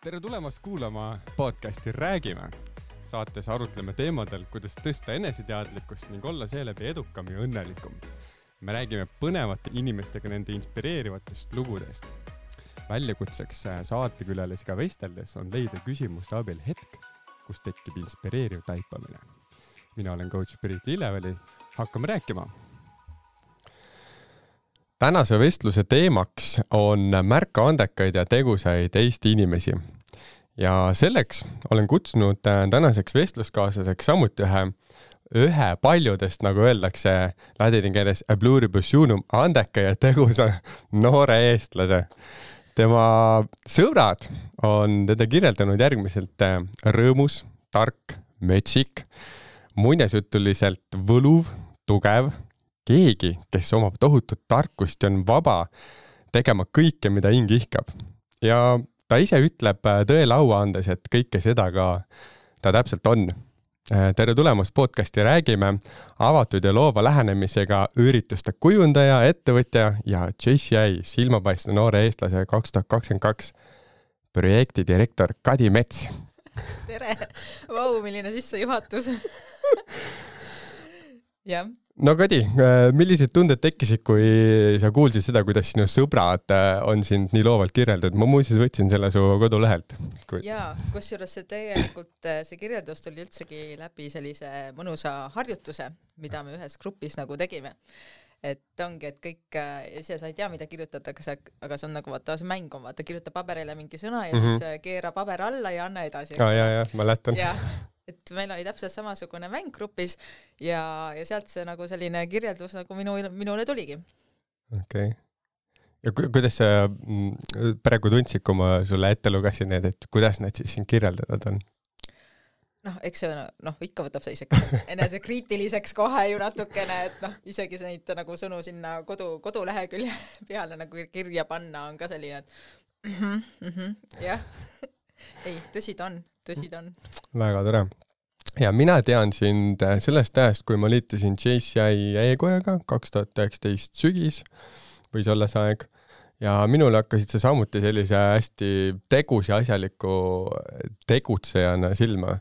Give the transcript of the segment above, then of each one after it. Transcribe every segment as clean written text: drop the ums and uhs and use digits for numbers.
Tere tulemast kuulama podcasti Räägime. Saates arutleme teemadel, kuidas tõsta eneseteadlikkust ning olla seeläbi edukam ja õnnelikum. Me räägime põnevate inimestega nende inspireerivatest lugudest. Väljakutseks saatekülalisiga vesteldes on leida küsimuste abil hetk, kus tekib inspireeriv taipamine. Mina olen coach Priit Lilleväli. Hakkame rääkima. Tänase vestluse teemaks on märka andekaid ja tegusaid Eesti inimesi. Ja selleks olen kutsunud tänaseks vestluskaaslaseks samuti ühe paljudest, nagu öeldakse ladini keeles, a pluribus unum, andeka ja tegusa noore eestlase. Tema sõbrad on teda kirjeldanud järgmiselt rõõmus, tark, metsik, muinasjutuliselt võluv, tugev, keegi, kes omab tohutut tarkust ja on vaba tegema kõike, mida hing ihkab. Ja ta ise ütleb tõele au andes, et kõike seda ka ta täpselt on. Tere tulemast podcasti Räägime, avatud ja loova lähenemisega ürituste kujundaja, ettevõtja ja JCI silmapaistva noore eestlase 2022 projekti direktor Kadi Mets. Tere! Vau, milline sissejuhatus. Jah. No Kadi, millised tunded tekkisid, kui sa kuulsid seda, kuidas sinu sõbrad on sind nii loovalt kirjeldatud? Ma muuseas võtsin selle su kodulehelt. Jaa, kusjuures see kirjeldus tuli üldsegi läbi sellise mõnusa harjutuse, mida me ühes grupis nagu tegime. Et ongi, et kõik, ise sa ei tea, mida kirjutatakse, aga see on nagu see mäng on, kirjuta paberile mingi sõna ja siis keera paber alla ja anna edasi. Ja, ma lähtan. Et meil oli täpselt samasugune mäng grupis ja sealt see nagu selline kirjeldus nagu minule tuligi. Okei. Ja kuidas sa praegu tundsid, kui ma sulle ette lugesin need, et kuidas nad siis siin kirjeldatud on? Eks see ikka võtab see isegi enesekriitiliseks kohe ju natukene, et isegi neid nagu sõnu sinna kodulehekülje peale nagu kirja panna on ka selline, et jah. Ei, tõsi ta on. Väga tore. Ja mina tean sind sellest ajast, kui ma liitusin JCI e-kojaga 2019 sügis, võis olla see aeg. Ja minule hakkasid sa samuti sellise hästi tegus ja asjaliku tegutsejana silma.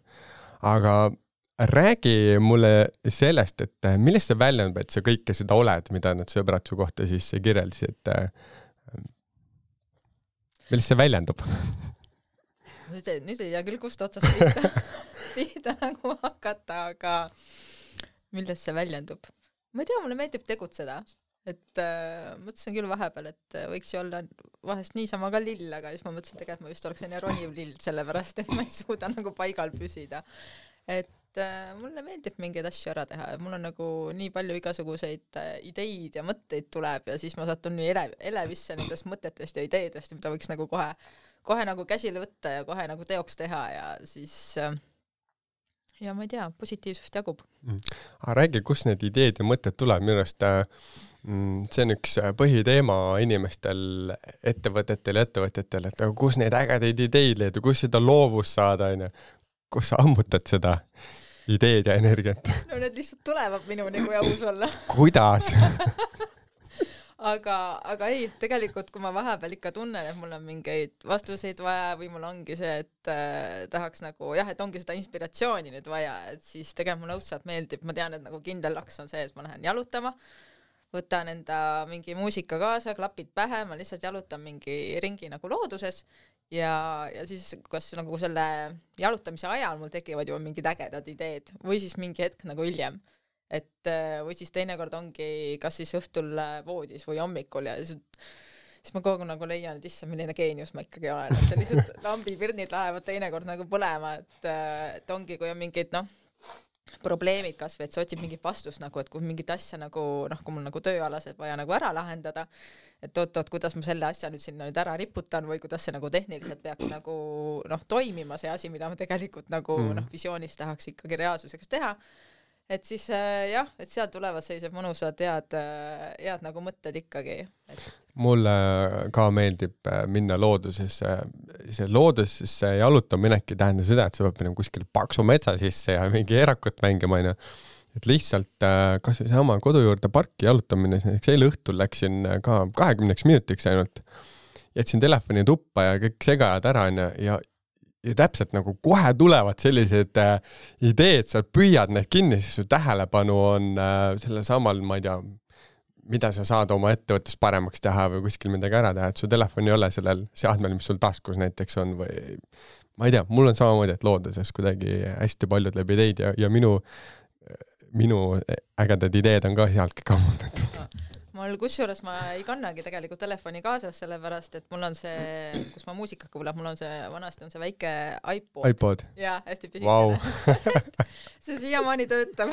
Aga räägi mulle sellest, et millest see väljendab, et sa kõike seda oled, mida nad sõbrad su kohta siis kirjeldasid, et millest see väljendub? Nüüd ei tea küll, kust otsast pihta nagu hakata, aga millest see väljendub? Ma ei tea, mulle meeldib tegutseda. Et mõtlesin küll vahepeal, et võiks ju olla vahest niisama ka lill, aga siis ma mõtlesin tegelikult, ma vist oleksin roniv lill, sellepärast, et ma ei suuda nagu paigal püsida. Et mulle meeldib mingeid asju ära teha. Mul on nagu nii palju igasuguseid ideid ja mõtteid tuleb ja siis ma satun nii elevisse nendest mõtetest ja ideedest, mida võiks nagu kohe nagu käsile võtta ja kohe nagu teoks teha ja siis ja ma ei tea, positiivsust jagub. Räägi, kus need ideed ja mõtted tuleb? Minu arust see on üks põhiteema inimestel, ettevõtetel, et kus neid ägedaid ideid leida, kus seda loovust saada, kus sa ammutad seda ideed ja energiat? No need lihtsalt tulevad minuni, kui aus olla. Kuidas? Aga ei, tegelikult kui ma vahepeal ikka tunnen, et mul on mingeid vastuseid vaja või mul ongi see, et tahaks nagu, et ongi seda inspiratsiooni nüüd vaja, et siis tegelikult mulle õudselt meeldib, ma tean, et nagu kindel laks on see, et ma lähen jalutama, võtan enda mingi muusika kaasa, klapid pähe, ma lihtsalt jalutan mingi ringi nagu looduses ja siis kas nagu selle jalutamise ajal mul tekivad juba mingid ägedad ideed või siis mingi hetk nagu hiljem. Et või siis teinekord ongi kas siis õhtul voodis või hommikul ja siis ma kogu nagu leian, et issa, milline geenius ma ikkagi olen. Et see lihtsalt lambipirnid lähevad teinekord nagu põlema, et ongi, kui on mingid probleemid kas või, et sa otsid mingit vastust nagu, et kui mingit asja nagu, kui mul nagu tööalased vaja nagu ära lahendada, et oot, kuidas ma selle asja nüüd sinna nüüd ära riputan või kuidas see nagu tehniliselt peaks nagu toimima see asi, mida ma tegelikult nagu visioonis tahaks ikkagi reaalsuseks teha. Et siis et seal tulevad sellised mõnusad head nagu mõtted ikkagi. Mulle ka meeldib minna loodusesse. See loodusesse jalutamine tähendab seda, et sa pead minema kuskil paksu metsa sisse ja mingi erakut mängima. Et lihtsalt kas või sama kodu juurde parki jalutamine, eile õhtul läksin ka 20 minutiks ainult. jätsin telefoni tuppa ja kõik segajad ära ja täpselt nagu kohe tulevad sellised ideed, sa püüad need kinni, siis su tähelepanu on sellel samal, ma ei tea, mida sa saad oma ettevõttes paremaks teha või kuskil midagi ära teha, et su telefon ei ole sellel seadmel, mis sul taskus näiteks on või ma ei tea, mul on samamoodi, et looduses kuidagi hästi palju tuleb ideid ja minu ägedad ideed on ka sealtki kammutatud. Mul kusjuures ma ei kannagi tegelikult telefoni kaasas, sellepärast, et mul on see, kus ma muusika kuulab, mul on see, vanasti on see väike iPod. Jaa, hästi pisikene. Wow. See siiamaani töötab.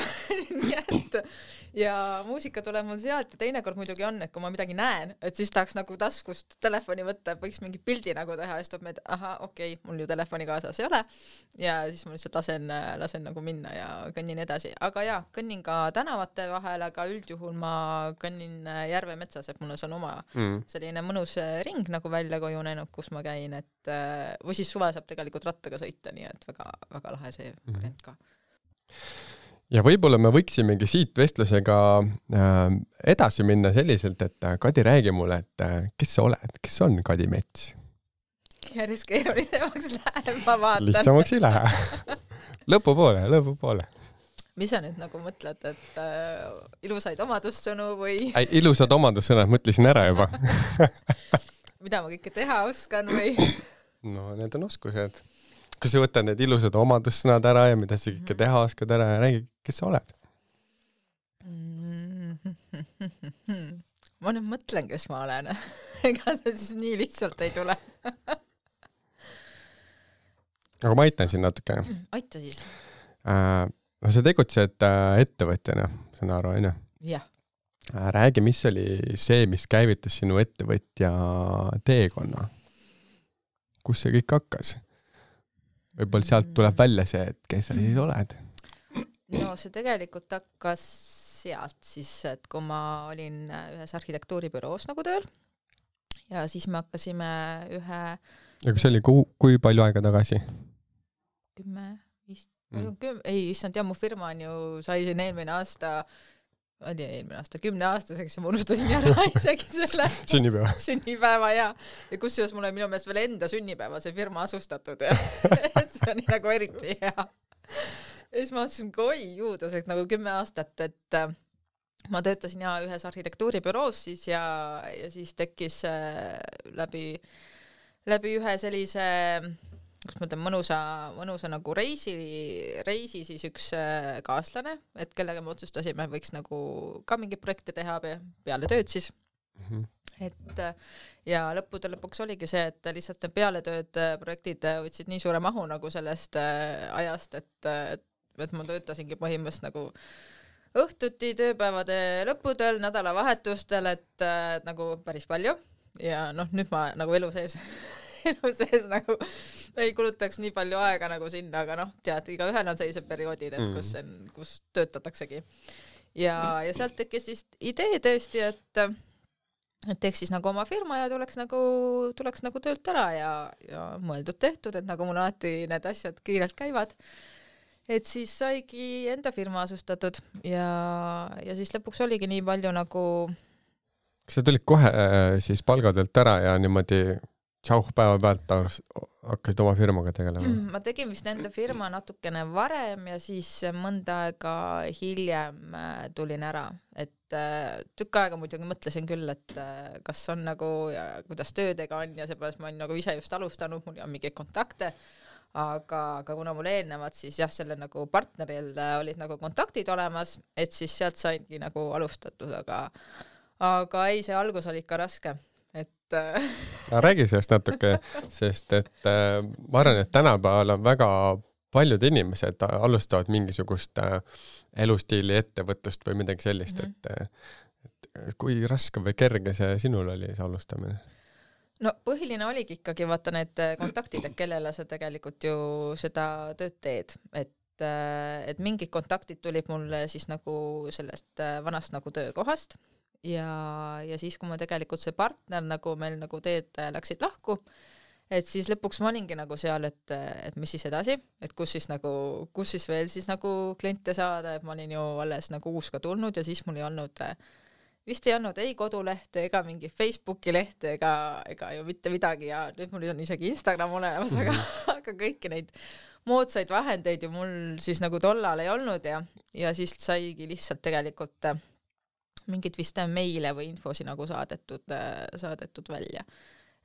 Nii et ja muusika tuleb mul sealt ja teinekord muidugi on, et kui ma midagi näen, et siis tahaks nagu taskust telefoni võtta, võiks mingi pildi nagu teha ja siis tuleb meid, okei, mul ju telefoni kaasas ei ole ja siis ma lihtsalt lasen nagu minna ja kõnnin edasi. Aga jaa, kõnnin ka tänavate vahel, aga üldjuhul ma kõnnin Järve metsas, et mul on oma selline mõnus ring nagu välja kujunenud, kus ma käin, et või siis suve saab tegelikult rattaga sõita, nii et väga, väga lahe see variant ka. Ja võib-olla me võiksimegi siit vestlusega edasi minna selliselt, et Kadi, räägi mulle, et kes sa oled, kes on Kadi Mets? Järjest keerulisemaks läheb, ma vaatan. Lihtsamaks ei lähe. Lõpupoole. Mis sa nüüd nagu mõtled, et ilusaid omadussõnu või? Ilusad omadussõnad mõtlesin ära juba. Mida ma kõike teha oskan või? No need on oskused. Kas sa võtad need ilusad omadussõnad ära ja mida sa kõike teha oskad ära ja räägi, kes sa oled? Ma nüüd mõtlen, kes ma olen. Ega see siis nii lihtsalt ei tule. Aga ma aitan siin natuke. Aita siis. No sa tegutsed ettevõtjana, saan aru, on ju? Jah. Räägi, mis oli see, mis käivitas sinu ettevõtja teekonna? Kus see kõik hakkas? Võib-olla sealt tuleb välja see, et kes sa siis oled? No see tegelikult hakkas sealt siis, et kui ma olin ühes arhitektuuribüroos nagu tööl ja siis me hakkasime ühe... Ja kus oli kui palju aega tagasi? 10 ei, issand, mu firma on ju, sai siin eelmine aasta 10-aastaseks ja ma unustasin ära isegi selle sünnipäeva ja kusjuures mul on minu meelest veel enda sünnipäeva see firma asustatud ja et see on nagu eriti hea. Ja siis ma mõtlesin, oi juudaseks nagu 10 aastat, et ma töötasin ühes arhitektuuribüroos siis ja siis tekkis läbi ühe sellise kus ma ütlen, mõnusa nagu reisi siis üks kaaslane, et kellega me otsustasime, võiks nagu ka mingi projekte teha peale tööd siis. Et ja lõpuks oligi see, et lihtsalt need pealetööd projektid võtsid nii suure mahu nagu sellest ajast, et ma töötasingi põhimõtteliselt nagu õhtuti, tööpäevade lõppudel, nädalavahetustel, et nagu päris palju ja nüüd ma nagu elu sees nagu ei kulutaks nii palju aega nagu sinna, aga tead, igaühel on sellised perioodid, et kus töötataksegi. Ja sealt tekkis siis idee tõesti, et teeks siis nagu oma firma ja tuleks nagu töölt ära ja mõeldud tehtud, et nagu mul alati need asjad kiirelt käivad. Et siis saigi enda firma asustatud ja siis lõpuks oligi nii palju nagu... Kas sa tulid kohe siis palgatöölt ära ja niimoodi päeva pealt hakkasid oma firmaga tegelema? Ma tegin vist enda firma natukene varem ja siis mõnda aega hiljem tulin ära. Et tükk aega muidugi mõtlesin küll, et kas on nagu ja kuidas töödega on ja seepärast ma olen nagu ise just alustanud, mul on mingeid kontakte, aga kuna mul eelnevad siis jah, selle nagu partneril olid nagu kontaktid olemas, et siis sealt saingi nagu alustatud, aga ei, see algus oli ikka raske. Räägi sellest natuke, sest et ma arvan, et tänapäeval on väga paljud inimesed alustavad mingisugust elustiili ettevõtlust või midagi sellist, et kui raske või kerge see sinul oli see alustamine? No põhiline oligi ikkagi vaata need kontaktid, et kellele sa tegelikult ju seda tööd teed, et mingid kontaktid tulid mulle siis nagu sellest vanast nagu töökohast ja siis, kui ma tegelikult see partner nagu meil nagu teed läksid lahku, et siis lõpuks ma olingi nagu seal, et mis siis edasi, et kus siis veel siis nagu kliente saada, et ma olin ju alles nagu uus ka tulnud ja siis mul ei olnud vist ei olnud ei kodulehte ega mingi Facebooki lehte ega ju mitte midagi ja nüüd mul on isegi Instagram olemas, aga kõiki neid moodsaid vahendeid ju mul siis nagu tollal ei olnud ja siis saigi lihtsalt tegelikult mingid vist meile või infosi nagu saadetud välja.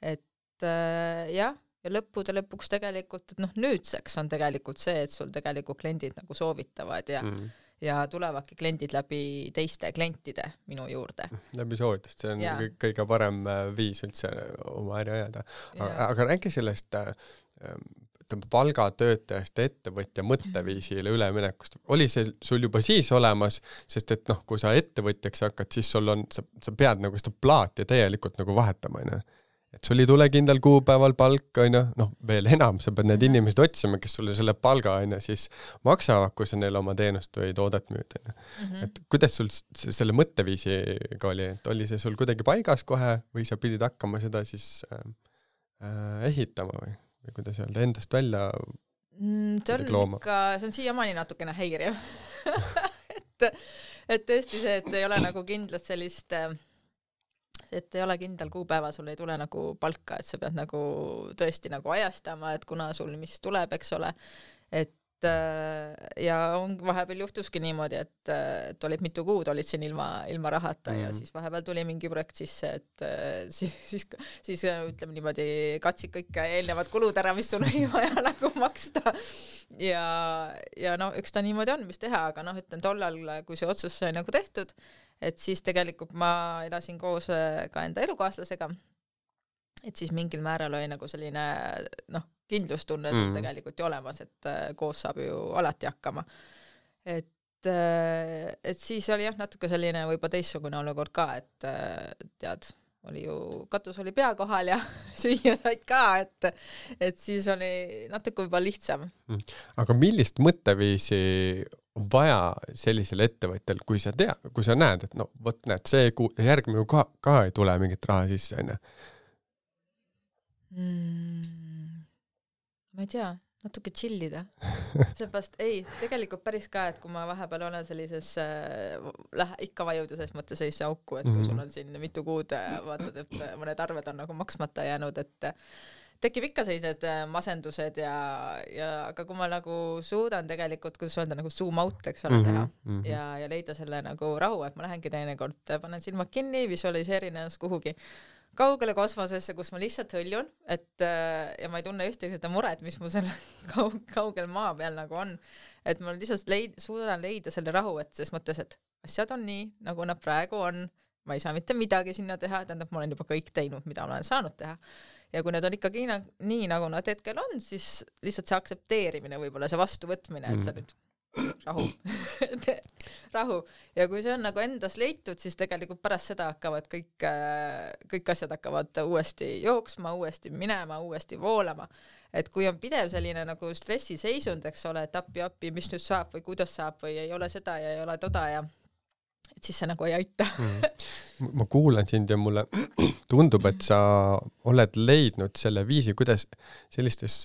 Et jah, ja lõppude lõpuks tegelikult, et nüüdseks on tegelikult see, et sul tegelikult kliendid nagu soovitavad ja tulevadki kliendid läbi teiste klientide minu juurde. Läbi soovitust, see on kõige parem viis üldse oma äri ajada. Aga räägi sellest palgatöötajast ettevõtja mõtteviisile üleminekust. Oli see sul juba siis olemas, sest et kui sa ettevõtjaks hakkad, siis sul on, sa pead nagu seda plaati täielikult nagu vahetama, et sul ei tule kindel kuupäeval palk, veel enam, sa pead need inimesed otsima, kes sulle selle palga siis maksavad, kui sa neile oma teenust või toodet müüd. Et kuidas sul selle mõtteviisiga oli, et oli see sul kuidagi paigas kohe või sa pidid hakkama seda siis ehitama või kuidas öelda, endast välja looma? See on siiamaani natukene häiriv. et tõesti see, et ei ole nagu kindlat sellist, et ei ole kindel kuupäeva, sul ei tule nagu palka, et sa pead nagu tõesti nagu ajastama, et kuna sul mis tuleb, eks ole, et ja vahepeal juhtuski niimoodi, et olid mitu kuud olid siin ilma rahata ja siis vahepeal tuli mingi projekt sisse, et siis ütleme niimoodi katsid kõik eelnevad kulud ära, mis sul oli vaja nagu maksta ja üks ta niimoodi on, mis teha, aga ütlen tollal, kui see otsus sai nagu tehtud, et siis tegelikult ma elasin koos ka enda elukaaslasega, et siis mingil määral oli nagu selline kindlustunne sul tegelikult ju olemas, et koos saab ju alati hakkama. Et siis oli natuke selline võib-olla teistsugune olukord ka, et tead, oli ju, katus oli pea kohal ja süüa said ka, et siis oli natuke võib-olla lihtsam. Aga millist mõtteviisi on vaja sellisel ettevõttel, kui sa näed, et võt näed, see järgmine ka ei tule mingit raha sisse, ma ei tea, natuke chillida. Seepärast tegelikult päris ka, et kui ma vahepeal olen sellises ikka vajuda selles mõttes sellisesse auku, et kui sul on siin mitu kuud vaatad, et mõned arved on nagu maksmata jäänud, et tekib ikka sellised masendused aga kui ma nagu suudan tegelikult, kuidas öelda, nagu zoom out, eks ole, teha ja leida selle nagu rahu, et ma lähengi teinekord, panen silmad kinni, visualiseerin ennast kuhugi kaugele kosmosesse, kus ma lihtsalt hõljun, ja ma ei tunne ühtegi seda muret, mis mu selle kaugel maa peal nagu on, et ma lihtsalt suudan leida selle rahu, et ses mõttes, et asjad on nii, nagu nad praegu on, ma ei saa mitte midagi sinna teha, tähendab, ma olen juba kõik teinud, mida olen saanud teha. Ja kui need on ikkagi nii, nagu nad hetkel on, siis lihtsalt see aktsepteerimine, võib-olla see vastuvõtmine, et sa nüüd rahu. Ja kui see on nagu endas leitud, siis tegelikult pärast seda hakkavad kõik asjad hakkavad uuesti jooksma, uuesti minema, uuesti voolama. Et kui on pidev selline nagu stressiseisund, eks ole, et appi, mis nüüd saab või kuidas saab või ei ole seda ja ei ole toda ja et siis see nagu ei aita. Ma kuulan sind ja mulle tundub, et sa oled leidnud selle viisi, kuidas sellistes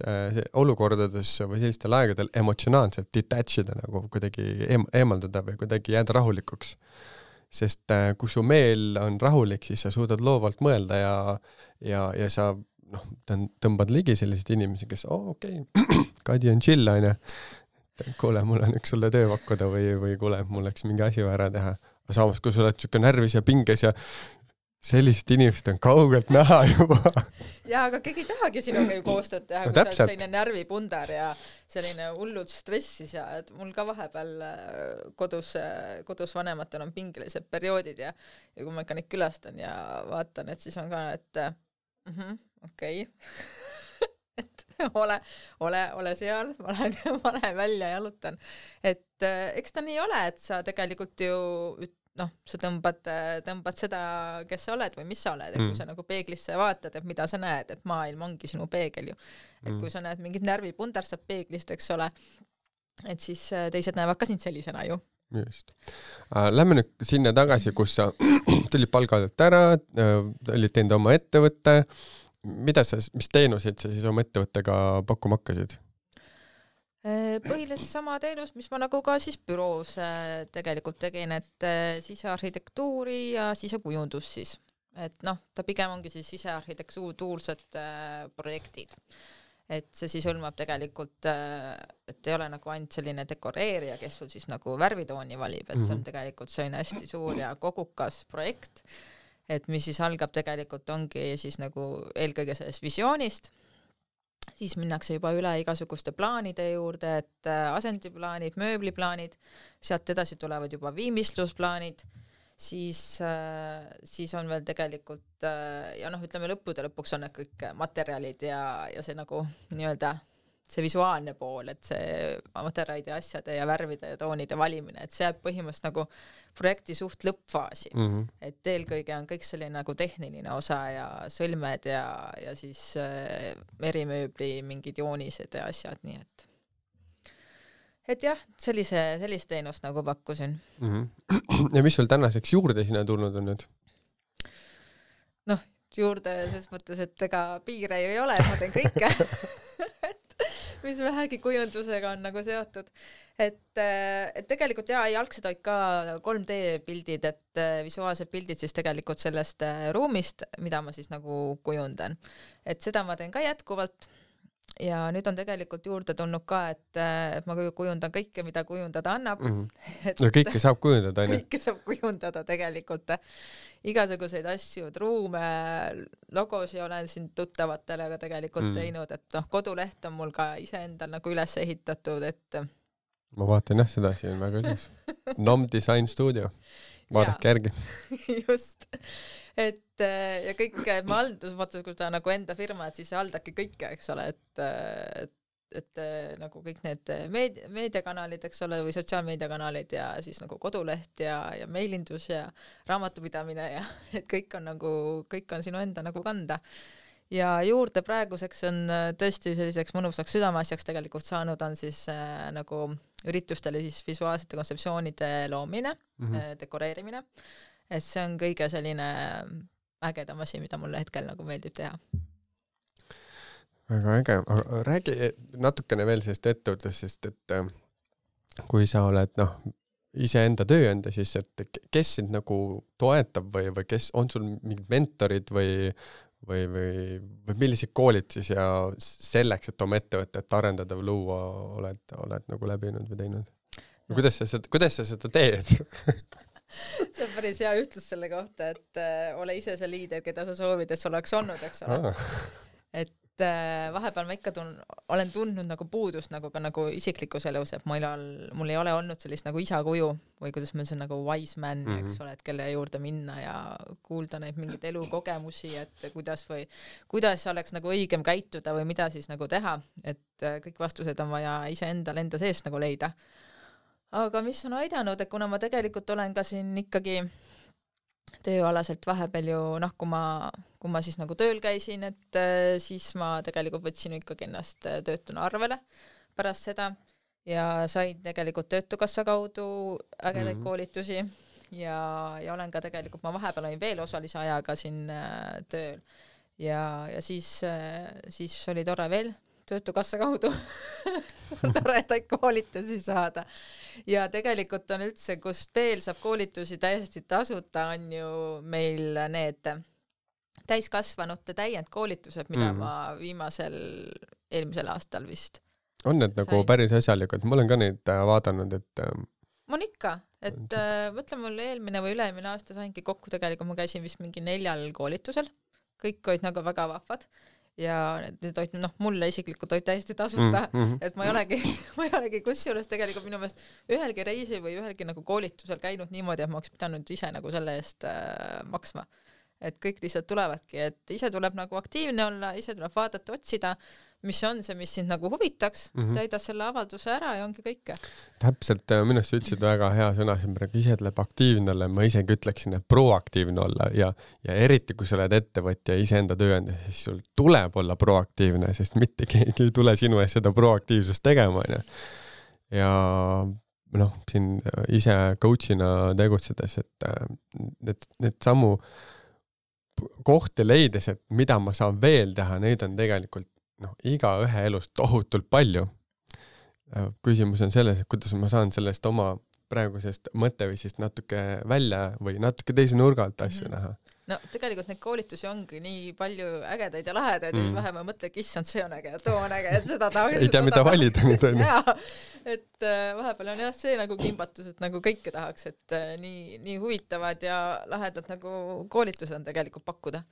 olukordades või sellistel aegadel emotsionaalselt detachida, nagu kuidagi eemalduda või kuidagi jääda rahulikuks. Sest kui su meel on rahulik, siis sa suudad loovalt mõelda ja sa tõmbad ligi selliseid inimesi, kes okei, Kadi on chill, kuule, mul on üks sulle töö pakkuda või kuule, mul läks mingi asi ära teha. Samas, kui sa oled siuke närvis ja pinges ja sellised inimesed on kaugelt näha juba. Ja, aga keegi tahagi sinuga ju koostööd teha, kui sa oled selline närvipundar ja selline hullud stressis ja et mul ka vahepeal kodus vanematel on pingelised perioodid ja kui ma ikka neid külastan ja vaatan, et siis on ka, et okei. Et ole seal, ma lähen välja ja jalutan. Et eks ta nii ole, et sa tegelikult ju sa tõmbad seda, kes sa oled või mis sa oled, et kui sa nagu peeglisse vaatad, et mida sa näed, et maailm ongi sinu peegel ju. Et kui sa näed mingit närvipundar saab peeglist, eks ole, et siis teised näevad ka sind sellisena ju. Just. Lähme nüüd sinna tagasi, kus sa tulid palgalt ära, olid teinud oma ettevõtte. Mis teenuseid sa siis oma ettevõttega pakkuma hakkasid? Põhiliselt sama teenus, mis ma nagu ka siis büroos tegelikult tegin, et sisearhitektuuri ja sisekujundus siis. Et noh, ta pigem ongi siis sisearhitektuursed projektid. Et see siis hõlmab tegelikult, et ei ole nagu ainult selline dekoreerija, kes sul siis nagu värvitooni valib, et see on tegelikult selline hästi suur ja kogukas projekt, et mis siis algab tegelikult ongi siis nagu eelkõige sellest visioonist, siis minnakse juba üle igasuguste plaanide juurde, et asendiplaanid, mööbliplaanid, sealt edasi tulevad juba viimistlusplaanid, siis on veel tegelikult ja noh, ütleme lõppude lõpuks on need kõik materjalid ja see nagu nii-öelda see visuaalne pool, et see materjalide asjade ja värvide ja toonide valimine, et see jääb põhimõtteliselt nagu projekti suht lõppfaasi. Et eelkõige on kõik selline nagu tehniline osa ja sõlmed ja siis erimööbli mingid joonised ja asjad, nii et jah, sellist teenust nagu pakkusin. Ja mis sul tänaseks juurde sinna tulnud on nüüd? Noh, juurde selles mõttes, et ega piire ju ei ole, ma teen kõike. Mis vähegi kujundusega on nagu seotud. Et tegelikult algselt olid ka 3D pildid, et visuaalsed pildid siis tegelikult sellest ruumist, mida ma siis nagu kujundan. Et seda ma teen ka jätkuvalt. Ja nüüd on tegelikult juurde tulnud ka, et ma kujundan kõike, mida kujundada annab. No kõike saab kujundada, aine? Kõike saab kujundada tegelikult. Igasuguseid asju, ruume, logosi olen siin tuttavatele ka tegelikult teinud, et noh, koduleht on mul ka iseendal nagu üles ehitatud, et ma vaatan jah seda siin väga ilus. NOM Design Studio. Vaadake järgi. Just. Et ja kõik, ma haldus, kui ta nagu enda firma, et siis haldabki kõike, eks ole, et nagu kõik need meediakanalid, eks ole, või sotsiaalmeediakanalid ja siis nagu koduleht ja meilindus ja raamatupidamine ja et kõik on sinu enda nagu kanda. Ja juurde praeguseks on tõesti selliseks mõnusaks südameasjaks tegelikult saanud on siis nagu üritustele siis visuaalsete kontseptsioonide loomine, dekoreerimine. Et see on kõige selline ägedam asi, mida mulle hetkel nagu meeldib teha. Väga äge. Aga räägi natukene veel sellest ettevõtlusest, et kui sa oled iseenda tööenda, siis et kes sind nagu toetab või kes on sul mingid mentorid või milliseid koolitusi ja selleks, et oma ettevõtet arendada või luua oled nagu läbinud või teinud? No. Kuidas sa seda teed? See on päris hea ütlus selle kohta, et ole ise see liider, keda sa soovid, et sul oleks olnud, eks ole. Et vahepeal ma ikka olen tundnud nagu puudust nagu ka nagu isiklikus elus, et mul ei ole olnud sellist nagu isa kuju või kuidas meil see nagu wise man, eks ole, et kelle juurde minna ja kuulda neid mingeid elukogemusi, et kuidas oleks nagu õigem käituda või mida siis nagu teha, et kõik vastused on vaja iseendal enda seest nagu leida. Aga mis on aidanud, et kuna ma tegelikult olen ka siin ikkagi tööalaselt vahepeal ju, kui ma siis nagu tööl käisin, et siis ma tegelikult võtsin ikkagi ennast töötuna arvele pärast seda ja sain tegelikult Töötukassa kaudu ägedaid koolitusi ja olen ka tegelikult, ma vahepeal olin veel osalise ajaga siin tööl ja siis oli tore veel Töötukassa kaudu toredaid koolitusi saada. Ja tegelikult on üldse, kust veel saab koolitusi täiesti tasuta, on ju meil need täiskasvanute täiendkoolitused, mida ma eelmisel aastal vist on need nagu päris asjalikud? Ma olen ka neid vaadanud, et ma on ikka, et mõtlen mul eelmine või üle-eelmine aasta saingi kokku tegelikult, ma käisin vist mingi 4 koolitusel, kõik olid nagu väga vahvad ja need olid, mulle isiklikult olid täiesti tasuta, et ma ei olegi kusjuures tegelikult minu meelest ühelgi reisil või ühelgi nagu koolitusel käinud niimoodi, et ma oleks pidanud ise nagu selle eest maksma. Et kõik lihtsalt tulevadki, et ise tuleb nagu aktiivne olla, ise tuleb vaadata, otsida, mis on see, mis sind nagu huvitaks, täida selle avalduse ära ja ongi kõike. Täpselt, minust sa ütlesid väga hea sõna, ise tuleb aktiivne olla, ma isegi ütleksin, et proaktiivne olla ja eriti, kui sa oled ettevõtja iseenda tööandja, siis sul tuleb olla proaktiivne, sest mitte keegi ei tule sinu ees seda proaktiivsust tegema. Ja siin ise coachina tegutsedes, et need sammu kohti leides, et mida ma saan veel teha, neid on tegelikult iga ühe elust tohutult palju. Küsimus on selles, et kuidas ma saan sellest oma praegusest mõtteviisist natuke välja või natuke teise nurga alt asju näha. No tegelikult neid koolitusi ongi nii palju ägedaid ja lahedaid, et vähe ma mõtlen, et issand, see on äge ja too on äge, et seda tahaks. Ei tea, mida valida nüüd on. Et vahepeal on jah see nagu kimbatus, et nagu kõike tahaks, et nii huvitavad ja lahedad nagu koolitused on tegelikult pakkuda.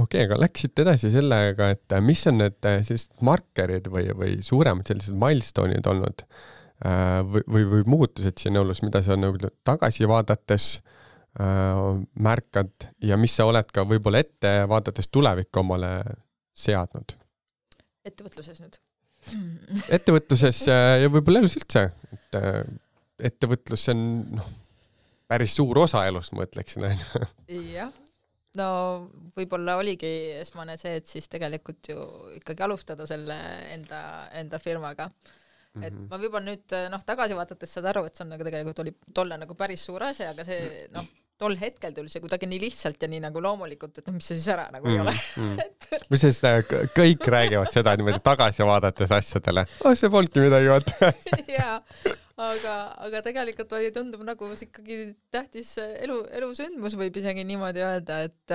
Okei, aga läksite edasi sellega, et mis on need sellised markerid või suuremad sellised milestone'id olnud või muutused siin elus, mida sa nagu tagasi vaadates märkad ja mis sa oled ka võib-olla ette vaadates tulevikku omale seadnud? Ettevõtluses nüüd? Ettevõtluses ja võib-olla elus üldse. Et ettevõtlus on päris suur osa elust, ma ütleksin. Jah. No võib-olla oligi esmane see, et siis tegelikult ju ikkagi alustada selle enda firmaga. Et ma võib-olla nüüd tagasi vaadates saad aru, et see on nagu tegelikult oli tolle nagu päris suur asja, aga see tol hetkel tuli see kuidagi nii lihtsalt ja nii nagu loomulikult, et mis see siis ära nagu ei ole. Mis siis kõik räägivad seda niimoodi tagasi vaadates asjadele? See polnudki midagi vaata. Jaa, aga tegelikult oli tundub nagu ikkagi tähtis elusündmus võib isegi niimoodi öelda, et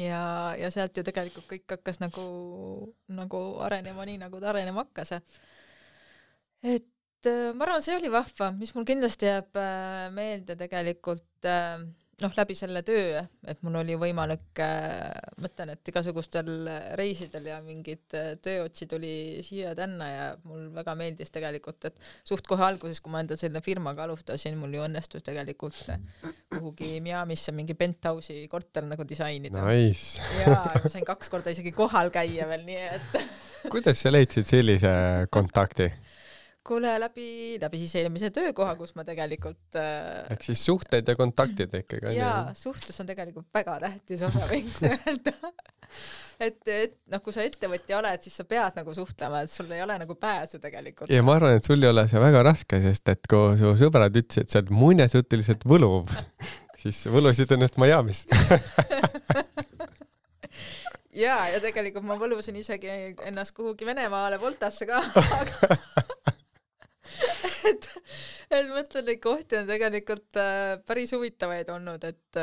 ja sealt ju tegelikult kõik hakkas nagu arenema nii, nagu ta arenema hakkas. Et ma arvan, see oli vahva, mis mul kindlasti jääb meelde tegelikult läbi selle töö, et mul oli võimalik, mõtlen, et igasugustel reisidel ja mingid tööotsid oli siia tänna ja mul väga meeldis tegelikult, et suht kohe alguses, kui ma enda selle firmaga alustasin, mul ju õnnestus tegelikult kuhugi Miamisse mingi penthouse'i korter nagu disainida. Nice. Ja ma sain 2 korda isegi kohal käia veel, nii et Kuidas sa leidsid sellise kontakti? Kuule, läbi siis eelmise töökoha, kus ma tegelikult ehk siis suhted ja kontaktid ikkagi. Jaa, suhtlus on tegelikult väga tähtis osa, võiks öelda. Et kui sa ettevõtja oled, siis sa pead nagu suhtlema, et sul ei ole nagu pääsu tegelikult. Ja ma arvan, et sul ei ole see väga raske, sest et kui su sõbrad ütlesid, et sa oled muinasjutiliselt võluv, siis võlusid ennast Miamis. Jaa, ja tegelikult ma võlusin isegi ennast kuhugi Venemaale Voltasse ka, et mõtlen, neid kohti on tegelikult päris huvitavaid olnud, et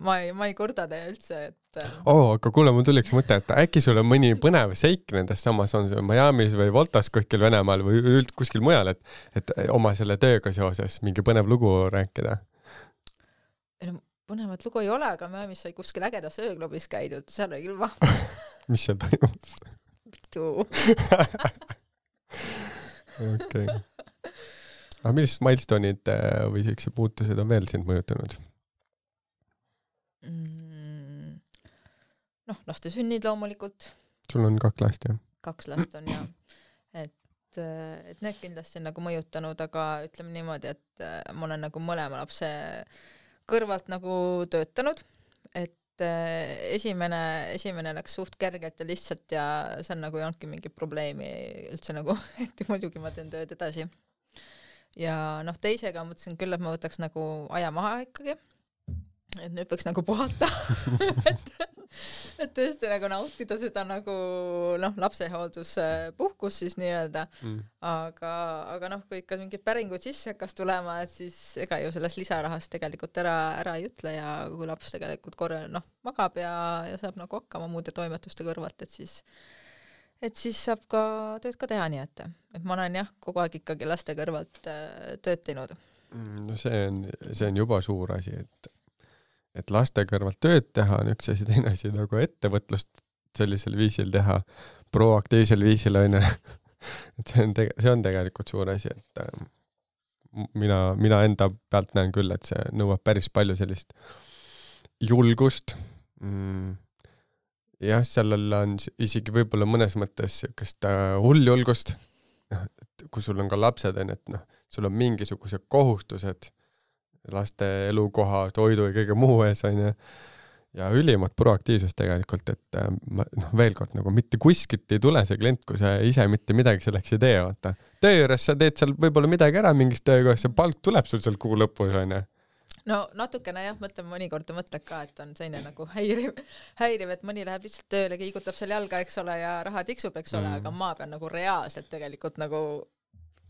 ma ei korda teie üldse, et aga kuule, mul tuliks mõte, et äkki sul on mõni põnev seik nendest samas on see Miamis või Voltas kuskil Venemaal või kuskil mujal, et oma selle tööga seoses mingi põnev lugu rääkida? Põnevat lugu ei ole, aga Miamis sai kuskil ägedas ööklubis käidud, seal oli küll vahva. Mis seal toimus? Okei. Aga millised milestone'id või sellised muutused on veel sind mõjutanud? Laste sünnid loomulikult. Sul on 2 last, jah? 2 last on, jah. Et need kindlasti on nagu mõjutanud, aga ütleme niimoodi, et ma olen nagu mõlema lapse kõrvalt nagu töötanud, et esimene läks suht kergelt ja lihtsalt ja see on nagu ei olnudki mingi probleemi üldse nagu, et muidugi ma teen tööd edasi. Ja teisega mõtlesin küll, et ma võtaks nagu aja maha ikkagi, et nüüd võiks nagu puhata, et tõesti nagu nautida seda nagu lapsehoolduspuhkus siis nii-öelda, aga kui ikka mingid päringud sisse hakkas tulema, et siis ega ju sellest lisarahast tegelikult ära ei ütle ja kui laps tegelikult magab ja saab nagu hakkama muude toimetuste kõrvalt, et siis saab ka tööd ka teha nii, et ma olen jah, kogu aeg ikkagi laste kõrvalt tööd teinud. No see on juba suur asi, et laste kõrvalt tööd teha on üks asi, teine asi nagu ettevõtlust sellisel viisil teha, proaktiivsel viisil on, et see on tegelikult suur asi, et mina enda pealt näen küll, et see nõuab päris palju sellist julgust. Jah, sellel on isegi võib-olla mõnes mõttes sellist hulljulgust, kui sul on ka lapsed, et sul on mingisugused kohustused laste elukoha, toidu ja kõige muu ees on ja ülimat proaktiivsust tegelikult, et veel kord nagu mitte kuskilt ei tule see klient, kui sa ise mitte midagi selleks ei tee, vaata. Töö juures sa teed seal võib-olla midagi ära mingist töökohas, see palk tuleb sul seal kuu lõpus, on. no natukene jah, mõtlen mõnikord mõtled ka, et on selline nagu häiriv, et mõni läheb lihtsalt tööle, kiigutab seal jalga, eks ole, ja raha tiksub, eks ole, aga ma pean nagu reaalselt tegelikult nagu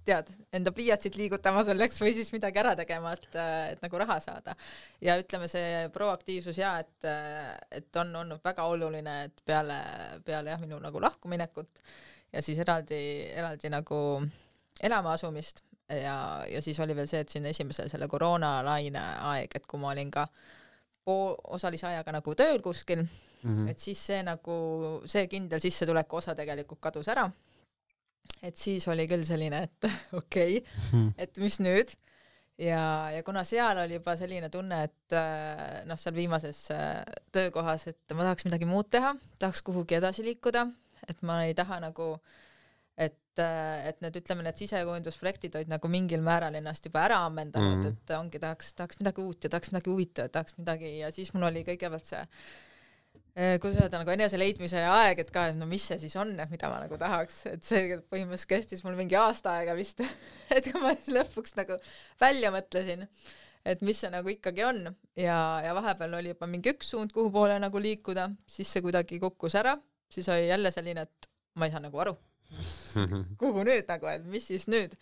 tead, enda pliiatsit liigutama selleks või siis midagi ära tegema, et nagu raha saada. Ja ütleme see proaktiivsus ja, et on olnud väga oluline, et peale jah, minu nagu lahkuminekut ja siis eraldi nagu elama asumist ja siis oli veel see, et siin esimesel selle koroonalaine aeg, et kui ma olin ka osalise ajaga nagu tööl kuskil, et siis see nagu, see kindel sissetuleku osa tegelikult kadus ära. Et siis oli küll selline, et okei, et mis nüüd? Ja kuna seal oli juba selline tunne, et noh, seal viimases töökohas, et ma tahaks midagi muud teha, tahaks kuhugi edasi liikuda, et ma ei taha nagu, et need, ütleme, need sisekujundusprojektid olid nagu mingil määral ennast juba ära ammendanud, et ongi tahaks midagi uut ja tahaks midagi huvitavat, tahaks midagi ja siis mul oli kõigepealt see kuidas öelda nagu enese leidmise aeg, et ka, et no mis see siis on, mida ma nagu tahaks, et see põhimõtteliselt kestis mul mingi aasta aega vist, et kui ma siis lõpuks nagu välja mõtlesin, et mis see nagu ikkagi on ja vahepeal oli juba mingi üks suund, kuhu poole nagu liikuda, siis see kuidagi kukkus ära, siis oli jälle selline, et ma ei saa nagu aru, kuhu nüüd nagu, et mis siis nüüd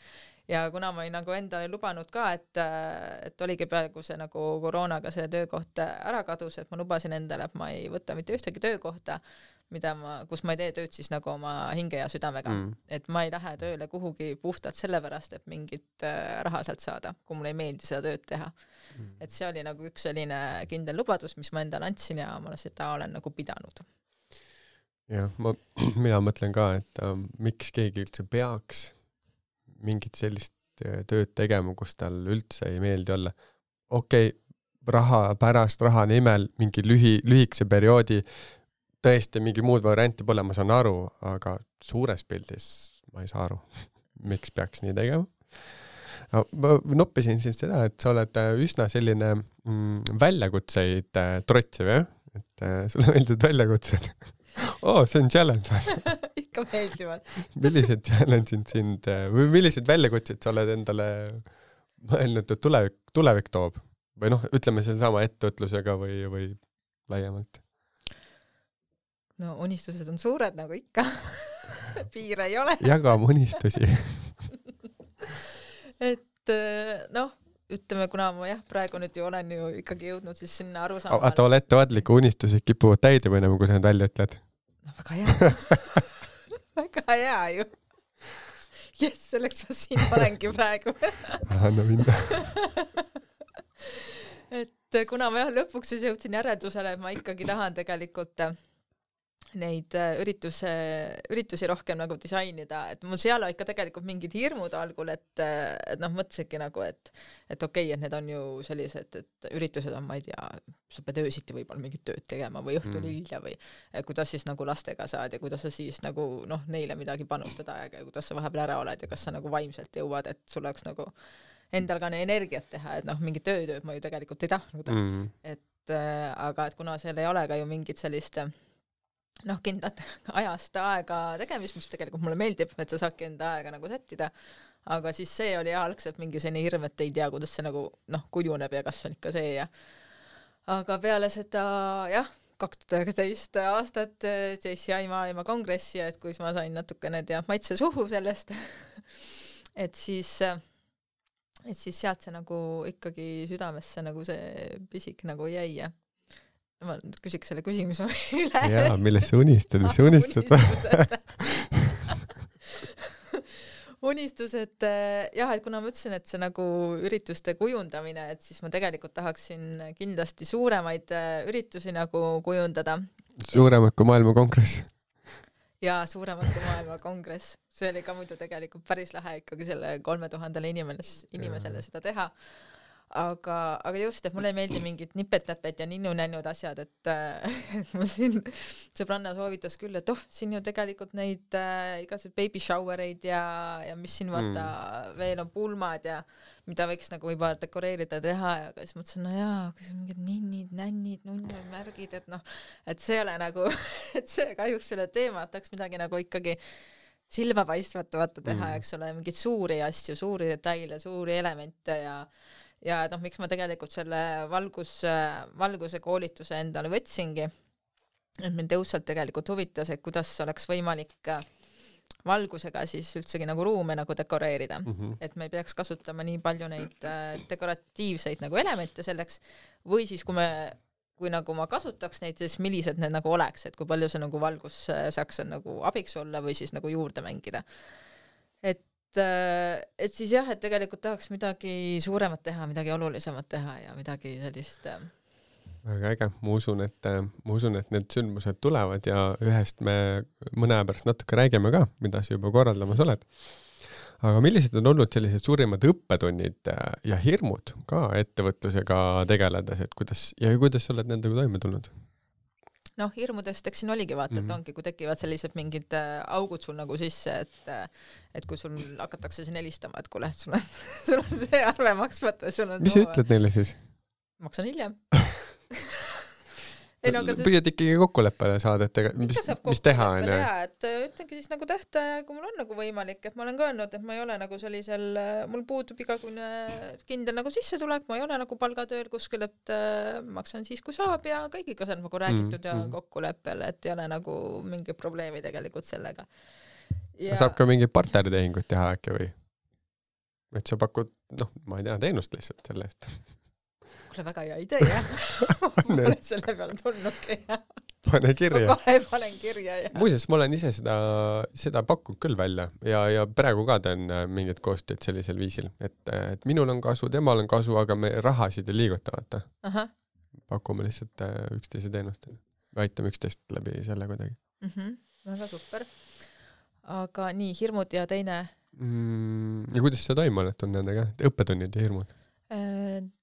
ja kuna ma olin nagu endale lubanud ka, et oligi peaaegu see nagu koroonaga see töökoht ära kadus, et ma lubasin endale, et ma ei võta mitte ühtegi töökohta, kus ma ei tee tööd siis nagu oma hinge ja südamega, et ma ei lähe tööle kuhugi puhtalt sellepärast, et mingit raha sealt saada, kui mulle ei meeldi seda tööd teha. Et see oli nagu üks selline kindel lubadus, mis ma endale andsin ja ma seda olen nagu pidanud. Jah, mina mõtlen ka, et miks keegi üldse peaks mingit sellist tööd tegema, kus tal üldse ei meeldi olla. Okei, raha pärast, raha nimel, mingi lühikese perioodi, tõesti mingi muud varianti pole, ma saan aru, aga suures pildis ma ei saa aru, miks peaks nii tegema. Ma noppisin siin seda, et sa oled üsna selline väljakutseid trotsiv, jah? Et sulle meeldivad väljakutsed. See on challenge. Ikka meeldivad. Millised challenge'id sind või millised väljakutsed sa oled endale mõelnud, et tulevik toob? Või noh, ütleme selle sama ettevõtlusega või laiemalt? No unistused on suured nagu ikka. Piire ei ole. Jagame unistusi. Et noh, ütleme, kuna ma praegu nüüd ju olen ju ikkagi jõudnud siis sinna aru saama. Aga ole ettevaatliku unistused kipuvad täide mõnema, kui sa need välja ütled. No väga hea. Väga hea ju. Jess, selleks ma siin olengi praegu. Anna minna. Et kuna ma lõpuks siis jõudsin järeldusele, et ma ikkagi tahan tegelikult neid üritusi rohkem nagu disainida, et mul seal ikka tegelikult mingid hirmud algul, et noh, mõtlesingi nagu, et okei, et need on ju sellised, et üritused on, ma ei tea, sa pead öösiti võib-olla mingit tööd tegema või õhtul hilja või kuidas siis nagu lastega saad ja kuidas sa siis nagu noh, neile midagi panustada aega ja kuidas sa vahepeal ära oled ja kas sa nagu vaimselt jõuad, et sul oleks nagu endal ka energiat teha, et noh, mingi tööd ma ju tegelikult ei tahtnud. Et aga et kuna seal ei ole ka ju mingit sellist noh, kindlat ajast aega tegemist, mis tegelikult mulle meeldib, et sa saadki enda aega nagu sättida, aga siis see oli algselt mingi selline hirm, et ei tea, kuidas see nagu noh, kujuneb ja kas on ikka see ja aga peale seda jah, 2019 aastat JCI maailma kongressi, et kui ma sain natukene maitse suhu sellest, et siis sealt see nagu ikkagi südamesse nagu see pisik nagu jäi ja ma küsiks selle küsimuse üle. Jaa, millest sa unistad, mis sa unistad? Unistused, jah, et kuna ma ütlesin, et see nagu ürituste kujundamine, et siis ma tegelikult tahaksin kindlasti suuremaid üritusi nagu kujundada. Suuremad kui maailma kongress? Jaa, suuremad kui maailma kongress. See oli ka muidu tegelikult päris lähe ikkagi selle 3000 inimesele seda teha. Aga just, et mulle ei meeldi mingid nipet-täpet ja ninnu-nännud asjad, et mul siin sõbranna soovitas küll, et siin ju tegelikult neid igasugused baby showereid ja mis siin vaata veel on pulmad ja mida võiks nagu võib-olla dekoreerida teha ja siis mõtlesin, no jaa, kas mingid ninnid, nännid, nunnid, märgid, et noh, et see ole nagu, et see kahjuks selle teema, et tahaks midagi nagu ikkagi silmapaistvat vaata teha, eks ole, mingeid suuri asju, suuri detaile, suuri elemente ja noh, miks ma tegelikult selle valguse koolituse endale võtsingi, et mind õudselt tegelikult huvitas, et kuidas oleks võimalik valgusega siis üldsegi nagu ruume nagu dekoreerida, et me ei peaks kasutama nii palju neid dekoratiivseid nagu elemente selleks, või siis kui nagu ma kasutaks neid, siis millised need nagu oleks, et kui palju see nagu valgus saaks nagu abiks olla või siis nagu juurde mängida. Et siis jah, et tegelikult tahaks midagi suuremat teha, midagi olulisemat teha ja midagi sellist väga äge, ma usun, et need sündmused tulevad ja ühest me mõne aja pärast natuke räägime ka, mida sa juba korraldamas oled. Aga millised on olnud sellised suurimad õppetunnid ja hirmud ka ettevõtlusega tegeledes, et kuidas sa oled nendega toime tulnud? Noh, hirmudest eks siin oligi vaata, et ongi, kui tekivad sellised mingid augud sul nagu sisse, et kui sul hakatakse siin helistama, et kuule, sul on see arve maksmata. Mis sa ütled neile siis? Maksan hiljem. Püüad ikkagi kokkuleppele saada, et mis teha on? Et ütlengi siis nagu tähtaja, kui mul on nagu võimalik, et ma olen ka öelnud, et ma ei ole nagu sellisel, mul puudub igakune kindel nagu sissetulek, ma ei ole nagu palgatööl kuskil, et maksan siis, kui saab ja kõigiga see on nagu räägitud ja kokkuleppel, et ei ole nagu mingi probleemi tegelikult sellega. Ja... Saab ka mingi partneritehingut teha äkki või? Et sa pakud, ma ei tea, teenust lihtsalt selle eest. Mulle väga hea idee, jah. Mulle selle peale tulnudki, jah. Pane kirja. Kohe panen kirja, jah. Muuseas, ma olen ise seda pakkunud küll välja ja praegu ka teen mingid koostööd sellisel viisil, et minul on kasu, temal on kasu, aga me rahasid ei liiguta, vaata. Pakume lihtsalt üksteise teenust. Aitame üksteist läbi selle kuidagi. Väga super. Aga nii, hirmud ja teine... Ja kuidas sa toime oled nendega? Õppetunnid ja hirmud?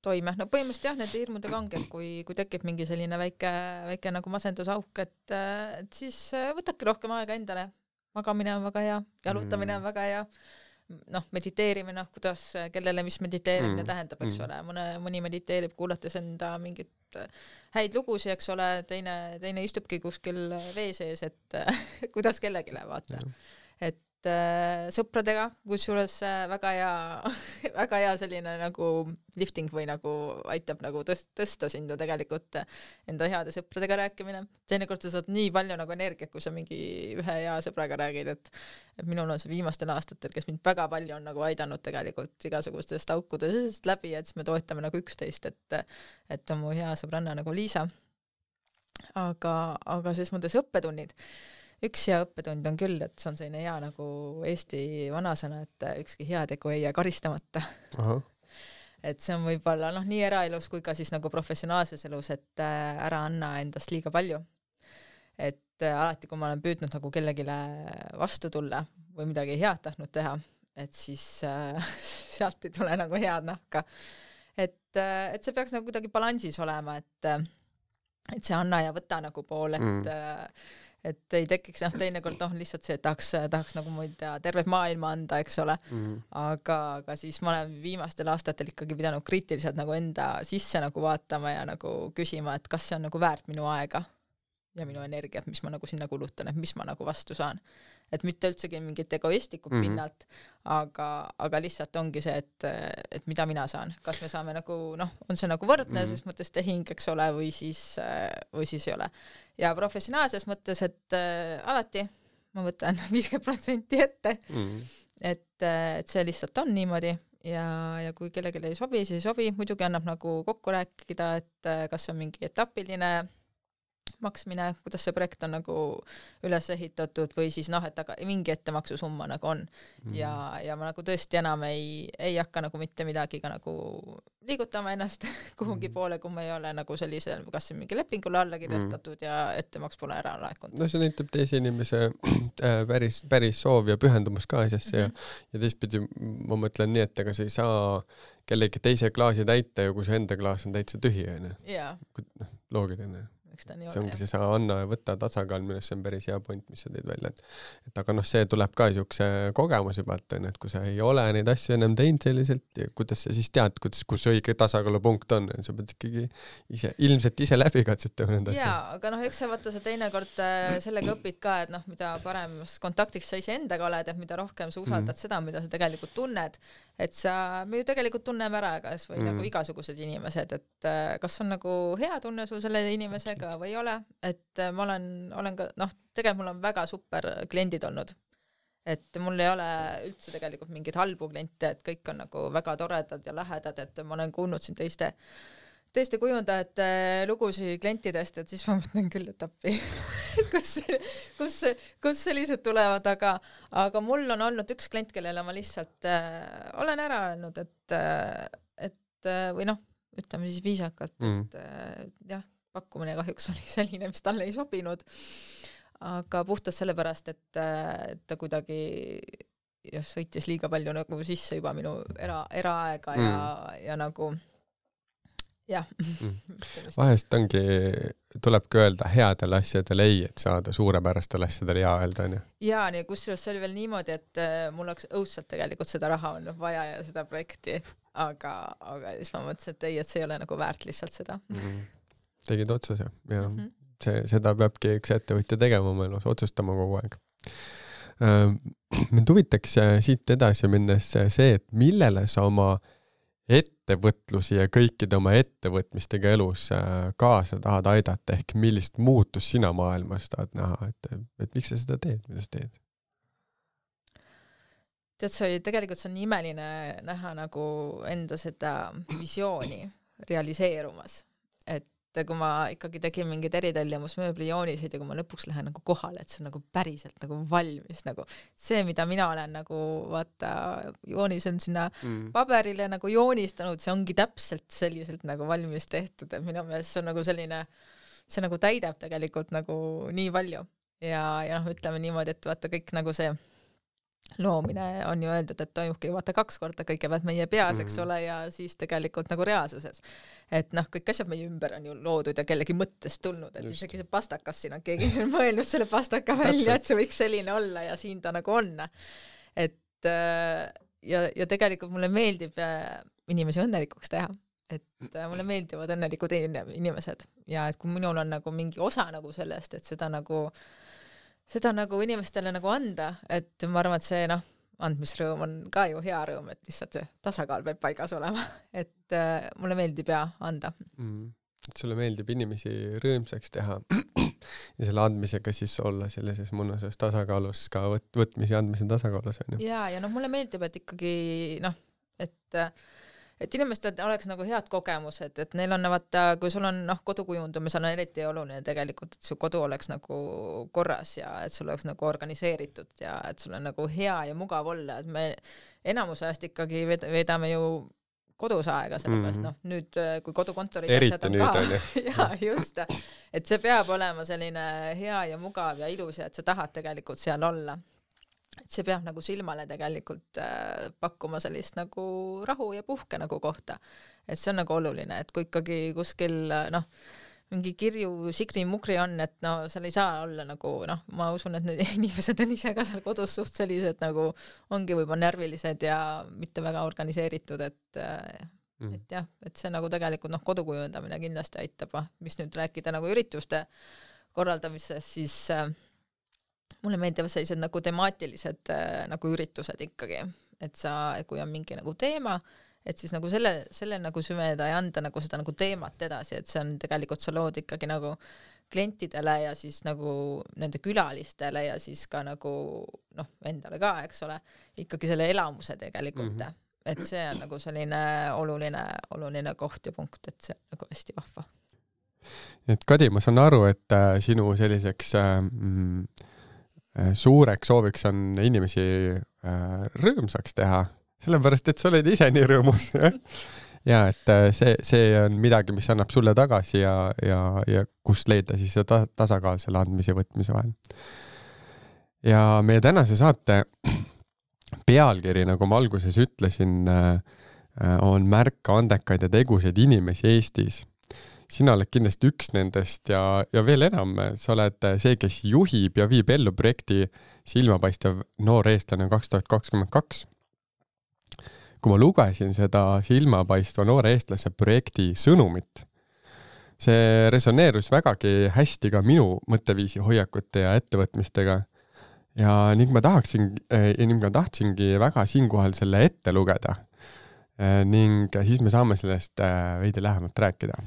Toime. No põhimõtteliselt jah, nende hirmudega ongi, et kui tekib mingi selline väike nagu masendusauk, et siis võtadki rohkem aega endale. Magamine on väga hea, jalutamine on väga hea. Mediteerimine, kuidas, kellele mis mediteerimine tähendab, eks ole. Mõni mediteerib kuulates enda mingit häid lugusi, eks ole, teine istubki kuskil vee sees, et kuidas kellegile vaata. Et sõpradega, kusjuures väga hea selline nagu lifting või nagu aitab nagu tõsta sinna tegelikult enda heade sõpradega rääkimine. Teinekord sa saad nii palju nagu energiat, kui sa mingi ühe hea sõbraga räägid, et minul on see viimastel aastatel, kes mind väga palju on nagu aidanud tegelikult igasugustest aukudest läbi, et siis me toetame nagu üksteist, et on mu hea sõbranna nagu Liisa. Aga ses mõttes õppetunnid. Üks hea õppetund on küll, et see on selline hea nagu Eesti vanasõna, et ükski heategu ei jää karistamata. Et see on võib-olla nii eraelus kui ka siis nagu professionaalses elus, et ära anna endast liiga palju. Et alati, kui ma olen püüdnud nagu kellegile vastu tulla või midagi head tahtnud teha, et siis sealt ei tule nagu head nahka. Et see peaks nagu kuidagi balansis olema, et see anna ja võta nagu pool, et ei tekiks teinekord lihtsalt see, et tahaks nagu muid tervet maailma anda, eks ole. Aga siis ma olen viimastel aastatel ikkagi pidanud kriitiliselt nagu enda sisse nagu vaatama ja nagu küsima, et kas see on nagu väärt minu aega ja minu energiat, mis ma nagu sinna kulutan, et mis ma nagu vastu saan. Et mitte üldsegi mingit egoistlikku pinnalt, aga lihtsalt ongi see, et mida mina saan. Kas me saame nagu, on see nagu võrdne, ses mõttes tehing, eks ole, või siis ei ole. Ja professionaalses mõttes, et alati ma võtan 50% ette, et see lihtsalt on niimoodi ja kui kellelegi ei sobi, siis ei sobi. Muidugi annab nagu kokku rääkida, et kas on mingi etapiline maksmine, kuidas see projekt on nagu üles ehitatud või siis et aga mingi ettemaksusumma nagu on. Ja ma nagu tõesti enam ei hakka nagu mitte midagi ka nagu liigutama ennast kuhugi poole, kui ma ei ole nagu sellisel, kas mingi lepingule alla kirjastatud ja ettemaks pole ära laekunud. No see näitab teise inimese päris soov ja pühendumus ka asjasse ja teistpidi ma mõtlen nii, et ega sa ei saa kellegi teise klaasi täita ja kui see enda klaas on täitsa tühi, loogiline. miks ta nii see ongi ole. see sa anna ja võtta tasakaal, millest see on päris hea point, mis sa teed välja, et aga noh, see tuleb ka niisuguse kogemuse pealt, et kui sa ei ole neid asju ennem teinud selliselt, kuidas sa siis tead, kus õige tasakaalupunkt on, sa pead ikkagi ilmselt ise läbi katsetama need asjad. Jaa, aga noh, eks sa vaata sa teinekord sellega õpid ka, et noh, mida parem kontaktiks sa ise endaga oled, et mida rohkem sa usaldad seda, mida sa tegelikult tunned, et me ju tegelikult tunneme ära kas või nagu igasugused inimesed, et kas on nagu hea tunne sul selle inimesega või ei ole, et ma olen ka, noh, tegelikult mul on väga super kliendid olnud, et mul ei ole üldse tegelikult mingeid halbu kliente, et kõik on nagu väga toredad ja lähedad, et ma olen kuulnud siin teiste kujundajate lugusid klientidest, et siis ma mõtlen küll, et appi, kus sellised tulevad, aga mul on olnud üks klient, kellele ma lihtsalt olen ära öelnud, et või noh, ütleme siis viisakalt, et jah, pakkumine kahjuks oli selline, mis talle ei sobinud, aga puhtalt sellepärast, et ta kuidagi sõitis liiga palju nagu sisse juba minu eraaega ja nagu jah. Vahest tulebki öelda headel asjadel ei, et saada suurepärastel asjadel ja öelda, on ju? Jaa, nii kusjuures see oli veel niimoodi, et mul oleks õudselt tegelikult seda raha olnud vaja ja seda projekti, aga siis ma mõtlesin, et ei, et see ei ole nagu väärt lihtsalt seda. Tegid otsuse ja seda peabki üks ettevõtja tegema oma elus, otsustama kogu aeg. Mind huvitaks siit edasi minnes see, et millele sa oma ettevõtlusi ja kõikide oma ettevõtmistega elus kaasa tahad aidata, ehk millist muutust sina maailmas tahad näha, et miks sa seda teed, mida sa teed? Tead, tegelikult see on imeline näha nagu enda seda visiooni realiseerumas, et kui ma ikkagi tegin mingid eritellimusmööbli jooniseid ja kui ma lõpuks lähen nagu kohale, et see on nagu päriselt nagu valmis, nagu see, mida mina olen nagu vaata joonisen sinna paberile nagu joonistanud, see ongi täpselt selliselt nagu valmis tehtud, et minu meelest see on nagu selline, see nagu täidab tegelikult nagu nii palju ja noh, ütleme niimoodi, et vaata kõik nagu see loomine on ju öeldud, et toimubki vaata 2 korda kõigepealt meie peas, eks ole, ja siis tegelikult nagu reaalsuses. Et noh, kõik asjad meie ümber on ju loodud ja kellegi mõttest tulnud, et isegi see pastakas siin on keegi mõelnud selle pastaka välja, et see võiks selline olla ja siin ta nagu on. Et ja tegelikult mulle meeldib inimesi õnnelikuks teha, et mulle meeldivad õnnelikud inimesed ja et kui minul on nagu mingi osa nagu sellest, et seda nagu inimestele nagu anda, et ma arvan, et see andmisrõõm on ka ju hea rõõm, et lihtsalt see tasakaal peab paigas olema, et mulle meeldib ja anda. Et sulle meeldib inimesi rõõmsaks teha ja selle andmisega siis olla sellises mõnusas tasakaalus ka võtmise ja andmise tasakaalus. Ja mulle meeldib, et ikkagi et inimestel oleks nagu head kogemused, et neil on vaata, kui sul on kodukujundumisel on eriti oluline tegelikult, et su kodu oleks nagu korras ja et sul oleks nagu organiseeritud ja et sul on nagu hea ja mugav olla, et me enamus ajast ikkagi veedame ju kodus aega, sellepärast nüüd kui kodukontorid asjad on ka ja just, et see peab olema selline hea ja mugav ja ilus ja et sa tahad tegelikult seal olla. Et see peab nagu silmale tegelikult pakkuma sellist nagu rahu ja puhke nagu kohta. Et see on nagu oluline, et kui ikkagi kuskil mingi kirju sigri-mugri on, et seal ei saa olla nagu, ma usun, et need inimesed on ise ka seal kodus suht sellised nagu ongi võib-olla närvilised ja mitte väga organiseeritud, et jah, et see nagu tegelikult kodukujundamine kindlasti aitab, mis nüüd rääkida nagu ürituste korraldamisest, siis mulle meeldivad sellised nagu temaatilised nagu üritused ikkagi, et kui on mingi nagu teema, et siis nagu selle nagu süveda ja anda nagu seda nagu teemat edasi, et see on tegelikult sa lood ikkagi nagu klientidele ja siis nagu nende külalistele ja siis ka nagu endale ka, eks ole, ikkagi selle elamuse tegelikult, et see on nagu selline oluline koht ja punkt, et see on nagu hästi vahva. Et Kadi, ma saan aru, et sinu selliseks suureks sooviks on inimesi rõõmsaks teha, sellepärast, et sa oled ise nii rõõmus. Ja et see on midagi, mis annab sulle tagasi ja kust leida siis seda tasakaal selle andmise ja võtmise vahel. Ja meie tänase saate pealkiri, nagu ma alguses ütlesin, on märka andekaid ja tegusaid inimesi Eestis. sina oled kindlasti üks nendest ja veel enam, sa oled see, kes juhib ja viib ellu projekti Silmapaistev noor eestlane 2022. Kui ma lugesin seda Silmapaistva noore eestlase projekti sõnumit, see resoneerus vägagi hästi ka minu mõtteviisi, hoiakute ja ettevõtmistega. Ja ning ma tahtsingi väga siinkohal selle ette lugeda. Ning siis me saame sellest veidi lähemalt rääkida.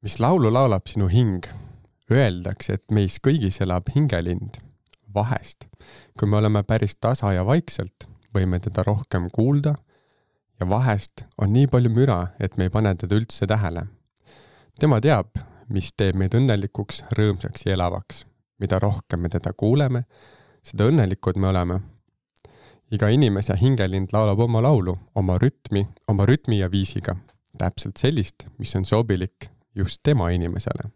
Mis laulu laulab sinu hing? Öeldakse, et meis kõigis elab hingelind. Vahest, kui me oleme päris tasa ja vaikselt, võime teda rohkem kuulda ja vahest on nii palju müra, et me ei pane teda üldse tähele. Tema teab, mis teeb meid õnnelikuks, rõõmsaks ja elavaks. Mida rohkem me teda kuuleme, seda õnnelikud me oleme. Iga inimese hingelind laulab oma laulu, oma rütmi ja viisiga. Täpselt sellist, mis on sobilik just tema inimesele.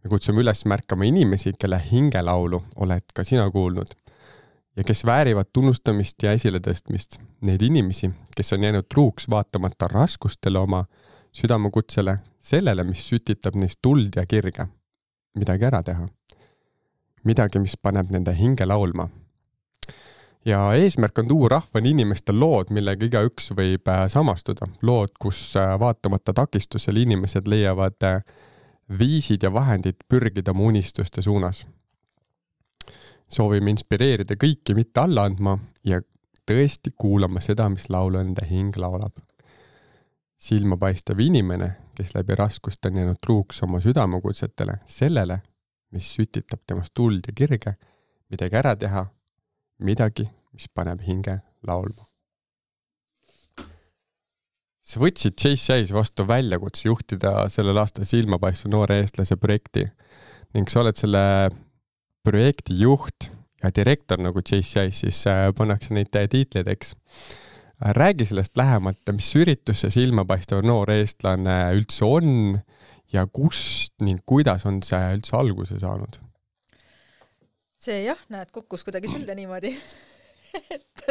Me kutsume üles märkama inimesi, kelle hingelaulu oled ka sina kuulnud ja kes väärivad tunnustamist ja esiletõstmist. Neid inimesi, kes on jäänud truuks vaatamata raskustele oma südamekutsele, sellele, mis sütitab neist tuld ja kirge. Midagi ära teha. Midagi, mis paneb nende hinge laulma. Ja eesmärk on tuua rahvani inimestel lood, millega igaüks võib samastuda. Lood, kus vaatamata takistusel inimesed leiavad viisid ja vahendid pürgida oma unistuste suunas. Soovime inspireerida kõiki mitte alla andma ja tõesti kuulama seda, mis laulu enda hing laulab. Silmapaistev inimene, kes läbi raskust on jäänud truuks oma südamekutsetele, sellele, mis sütitab temast tuld ja kirge, midagi ära teha, midagi, mis paneb hinge laulma. Sa võtsid JCI-s vastu väljakutse juhtida sellel aastal Silmapaistva noore eestlase projekti ning sa oled selle projekti juht ja direktor nagu JCI-s, siis pannakse neid tiitleid, eks. Räägi sellest lähemalt, mis üritus see Silmapaistev noor eestlane üldse on ja kust ning kuidas on see üldse alguse saanud? See näed, kukkus kuidagi sülle niimoodi. Et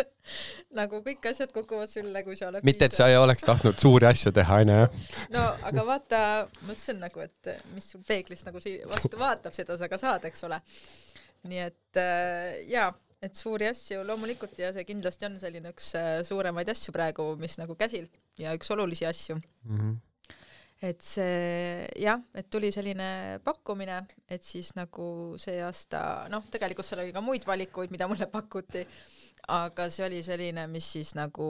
nagu kõik asjad kukuvad sülle, kui sa oled mitte, et sa ei oleks tahtnud suuri asju teha, aina, jah? No, aga vaata, mõtlesin nagu, et mis sul peeglist nagu vastu vaatab, seda sa ka saad, eks ole. Nii et et suuri asju loomulikult ja see kindlasti on selline üks suuremaid asju praegu, mis nagu käsil ja üks olulisi asju. Et see, et tuli selline pakkumine, et siis nagu see aasta, tegelikult seal oli ka muid valikuid, mida mulle pakuti, aga see oli selline, mis siis nagu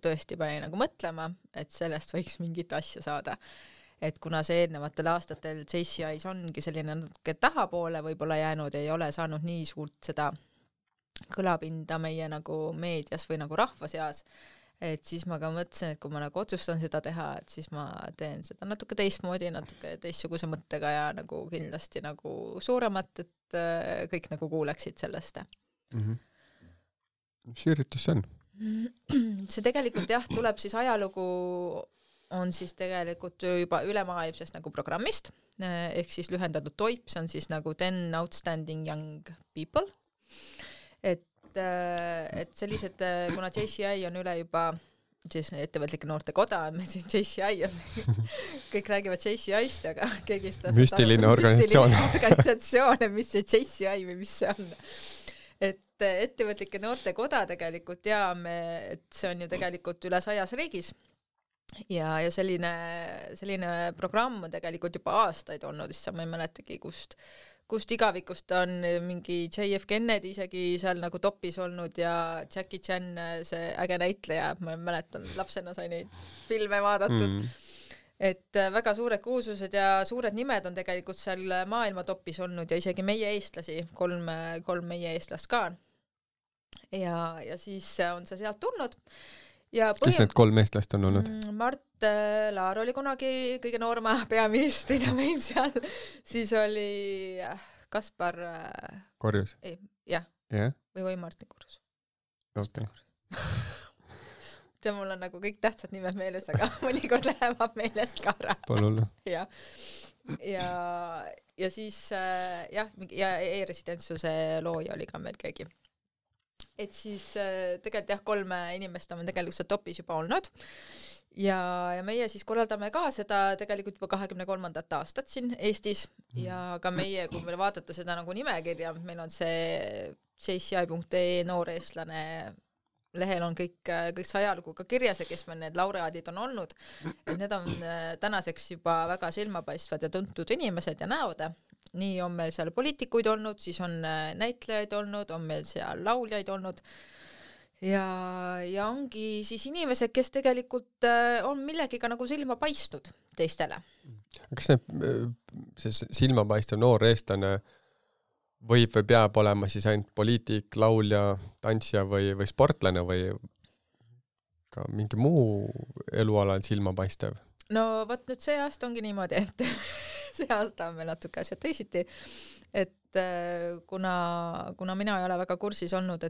tõesti pani nagu mõtlema, et sellest võiks mingit asja saada. Et kuna see eelnevatel aastatel JCI-s ongi selline natuke tahapoole võib-olla jäänud, ei ole saanud nii suurt seda kõlapinda meie nagu meedias või nagu rahva seas, et siis ma ka mõtlesin, et kui ma nagu otsustan seda teha, et siis ma teen seda natuke teistmoodi, natuke teistsuguse mõttega ja nagu kindlasti nagu suuremat, et kõik nagu kuuleksid sellest. Mis üritus see on? See tegelikult tuleb siis ajalugu on siis tegelikult juba ülemaailmsest nagu programmist, ehk siis lühendatud TOIP, see on siis nagu 10 Outstanding Young People. Et sellised, kuna JCI on üle juba siis ettevõtlike noorte koda, me siin JCI on, kõik räägivad JCI-st, aga keegi seda müstiline organisatsioon, mis see JCI või mis see on. Et ettevõtlike noorte koda tegelikult teame, et see on ju tegelikult üle 100 riigis ja selline programm on tegelikult juba aastaid olnud, siis ma ei mäletagi, kust igavikust on mingi JF Kennedy isegi seal nagu topis olnud ja Jackie Chan, see äge näitleja, ma mäletan, lapsena sai neid filme vaadatud. Et väga suured kuulsused ja suured nimed on tegelikult seal maailma topis olnud ja isegi meie eestlasi, kolm meie eestlast ka. Ja siis on see sealt tulnud. Kes need 3 eestlast on olnud? Mart Laar oli kunagi kõige noorma peaministrina meil seal, siis oli Kaspar Korjus? Või Martin Korjus. Okay. See mul on nagu kõik tähtsad nimed meeles, aga mõnikord lähevad meelest ka ära. Palun. Ja siis ja e-residentsuse looja oli ka meil keegi. Et siis tegelikult 3 inimest on tegelikult seal topis juba olnud ja meie siis korraldame ka seda tegelikult juba 23. aastat siin Eestis ja ka meie, kui meil vaadata seda nagu nimekirja, meil on see CCI.ee noor eestlane lehel on kõik see ajalugu ka kirjas ja kes meil need laureaadid on olnud, et need on tänaseks juba väga silmapaistvad ja tuntud inimesed ja näod. Nii on meil seal poliitikuid olnud, siis on näitlejaid olnud, on meil seal lauljaid olnud ja ongi siis inimesed, kes tegelikult on millegiga nagu silma paistnud teistele. Kas see silmapaistev noor eestlane võib või peab olema siis ainult poliitik, laulja, tantsija või sportlane või ka mingi muu elualal silmapaistev? No võt nüüd see aasta ongi niimoodi, et see aasta on meil natuke asjad teisiti, et kuna mina ei ole väga kursis olnud,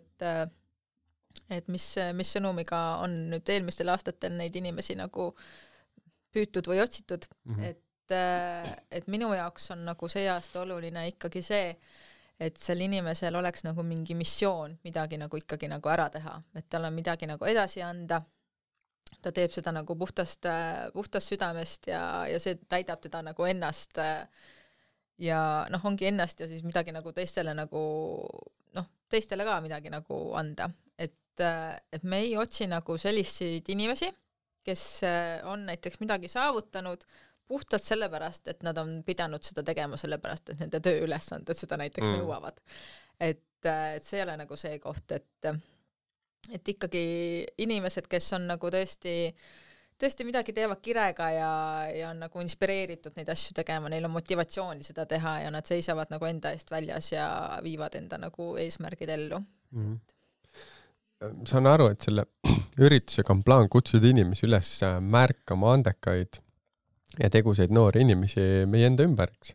et mis sõnumiga on nüüd eelmistel aastatel neid inimesi nagu püütud või otsitud, et minu jaoks on nagu see aasta oluline ikkagi see, et sel inimesel oleks nagu mingi missioon midagi nagu ikkagi nagu ära teha, et tal on midagi nagu edasi anda, ta teeb seda nagu puhtast südamest ja see täidab teda nagu ennast ja ongi ennast ja siis midagi nagu teistele nagu teistele ka midagi nagu anda, et me ei otsi nagu selliseid inimesi, kes on näiteks midagi saavutanud puhtalt sellepärast, et nad on pidanud seda tegema sellepärast, et nende tööülesanded seda näiteks nõuavad. Et see ei ole nagu see koht, et ikkagi inimesed, kes on nagu tõesti midagi teevad kirega ja on nagu inspireeritud neid asju tegema, neil on motivatsiooni seda teha ja nad seisavad nagu enda eest väljas ja viivad enda nagu eesmärgid ellu. Saan aru, et selle üritusega on plaan kutsuda inimesi üles märkama andekaid ja tegusaid noori inimesi meie enda ümber, eks.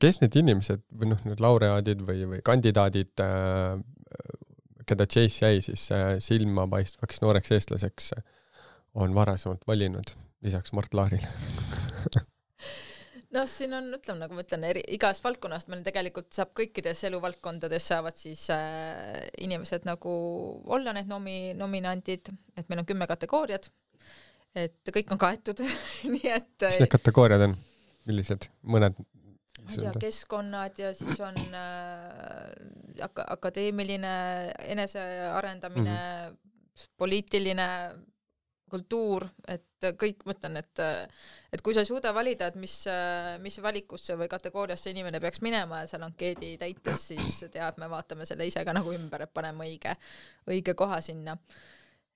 Kes need inimesed või need laureaadid või kandidaadid, keda JCI siis silmapaistvaks nooreks eestlaseks on varasemalt valinud, lisaks Mart Laarile? Siin on, ütleme, nagu ma ütlen, igas valdkonnast meil tegelikult saab kõikides eluvaldkondades saavad siis inimesed nagu olla need nominandid, et meil on 10 kategooriad, et kõik on kaetud. Nii et mis need kategooriad on? Millised? Mõned? Ma ei tea, keskkonnad ja siis on akadeemiline enesearendamine, poliitiline kultuur, et kõik mõtlen, et kui sa ei suuda valida, et mis valikusse või kategooriasse inimene peaks minema ja seal ankeedi täites, siis tead, me vaatame selle ise ka nagu ümber, et paneme õige koha sinna.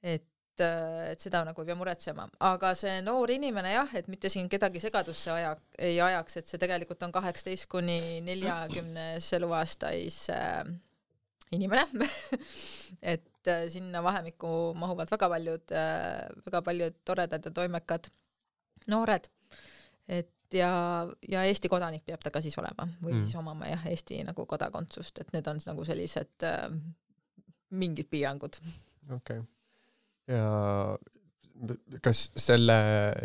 Et seda nagu ei pea muretsema. Aga see noor inimene jah, et mitte siin kedagi segadusse ei ajaks, et see tegelikult on 18 kuni 40 eluaastais inimene. Et sinna vahemikku mahuvad väga paljud toredad ja toimekad noored. Et ja Eesti kodanik peab ta ka siis olema või siis omama jah, Eesti nagu kodakondsust, et need on nagu sellised mingid piirangud. Okei. Ja kas selle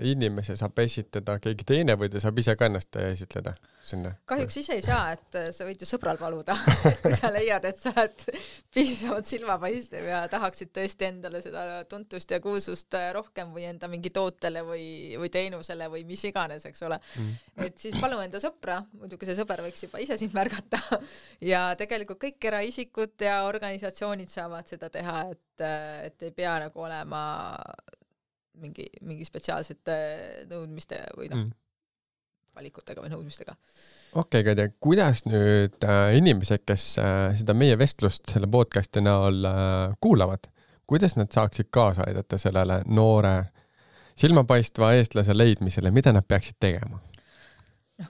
inimese saab esitada keegi teine või ta saab ise ka ennast esitleda sinna? Kahjuks ise ei saa, et sa võid ju sõbral paluda, kui sa leiad, et sa oled piisavalt silmapaistev ja tahaksid tõesti endale seda tuntust ja kuulsust rohkem või enda mingi tootele või teenusele või mis iganes, eks ole. Et siis palu enda sõpra, muidugi see sõber võiks juba ise sind märgata ja tegelikult kõik eraisikud ja organisatsioonid saavad seda teha, et ei pea nagu olema mingi spetsiaalsete nõudmiste või valikutega või nõudmistega. Okei, Kadja, kuidas nüüd inimesed, kes seda meie vestlust selle podcasti näol kuulavad, kuidas nad saaksid kaasa aidata sellele noore silmapaistva eestlase leidmisele, mida nad peaksid tegema?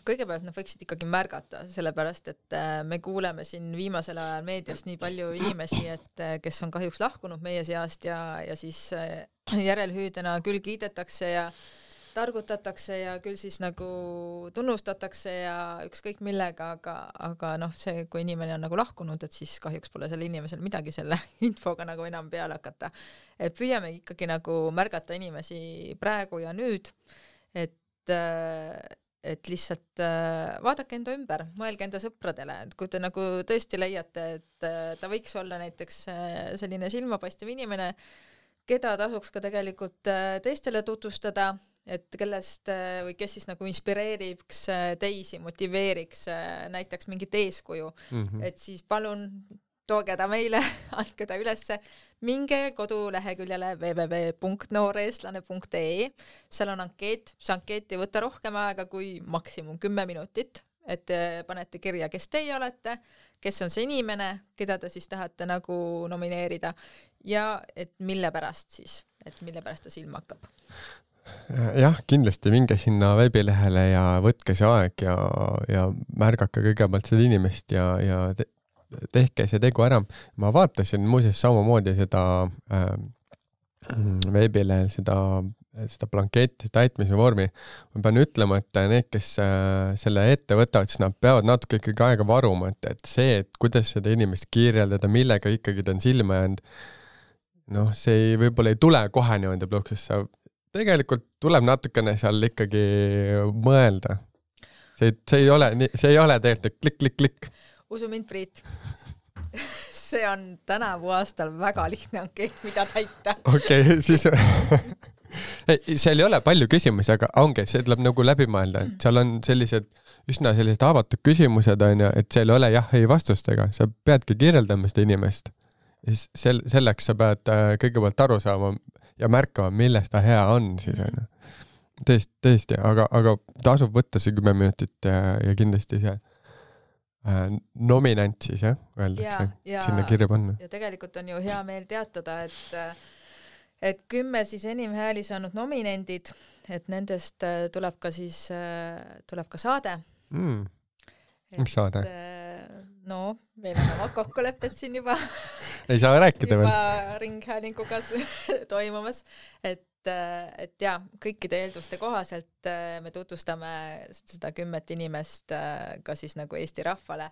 Kõigepealt nad võiksid ikkagi märgata, sellepärast, et me kuuleme siin viimasel ajal meediast nii palju inimesi, et kes on kahjuks lahkunud meie seast ja siis järelhüüdena küll kiidetakse ja targutatakse ja küll siis nagu tunnustatakse ja ükskõik millega, aga see, kui inimene on nagu lahkunud, et siis kahjuks pole selle inimesel midagi selle infoga nagu enam peale hakata. Et püüame ikkagi nagu märgata inimesi praegu ja nüüd, et lihtsalt vaadake enda ümber, mõelge enda sõpradele, et kui te nagu tõesti leiate, et ta võiks olla näiteks selline silmapaistev inimene, keda tasuks ka tegelikult teistele tutvustada, et kellest või kes siis nagu inspireeriks teisi, motiveeriks, näitaks mingit eeskuju, et siis palun tooge ta meile, andke ta ülesse, minge koduleheküljele www.nooreestlane.ee, seal on ankeet, see ankeet ei võta rohkem aega kui maksimum 10 minutit, et panete kirja, kes teie olete, kes on see inimene, keda te siis tahate nagu nomineerida ja et mille pärast ta silma hakkab. Jah, kindlasti minge sinna veebilehele ja võtke see aeg ja märgake kõigepealt seda inimest ja tehke see tegu ära. Ma vaatasin muuseas samamoodi seda veebilehel, seda blanketti, täitmise vormi. Ma pean ütlema, et need, kes selle ette võtavad, siis nad peavad natuke ikkagi aega varuma, et see, et kuidas seda inimest kirjeldada, millega ikkagi ta on silma jäänud, see võib-olla ei tule kohe niimoodi pluksusse. Tegelikult tuleb natukene seal ikkagi mõelda. See ei ole tegelikult klikk. Usu mind, Priit. See on tänavu aastal väga lihtne ankeet, mida täita. Okei, siis... seal ei ole palju küsimusi, aga ongi, see tuleb nagu läbi mõelda. Seal on üsna sellised avatud küsimused, et seal ei ole jah-ei vastustega. Sa peadki kirjeldama seda inimest. Selleks sa pead kõigepealt aru saama ja märkama, millest ta hea on. Siis, tõesti, aga tasub võtta see 10 minutit ja kindlasti see nominant siis, öeldakse, sinna kirja panna. Ja tegelikult on ju hea meel teatada, et 10 siis enim hääli saanud nominendid, et nendest tuleb ka saade. Mis saade? Meil on oma kokkulepped siin juba ei saa rääkida veel. Juba ringhäälinguga toimumas, et kõikide eelduste kohaselt me tutvustame seda 10 inimest ka siis nagu Eesti rahvale,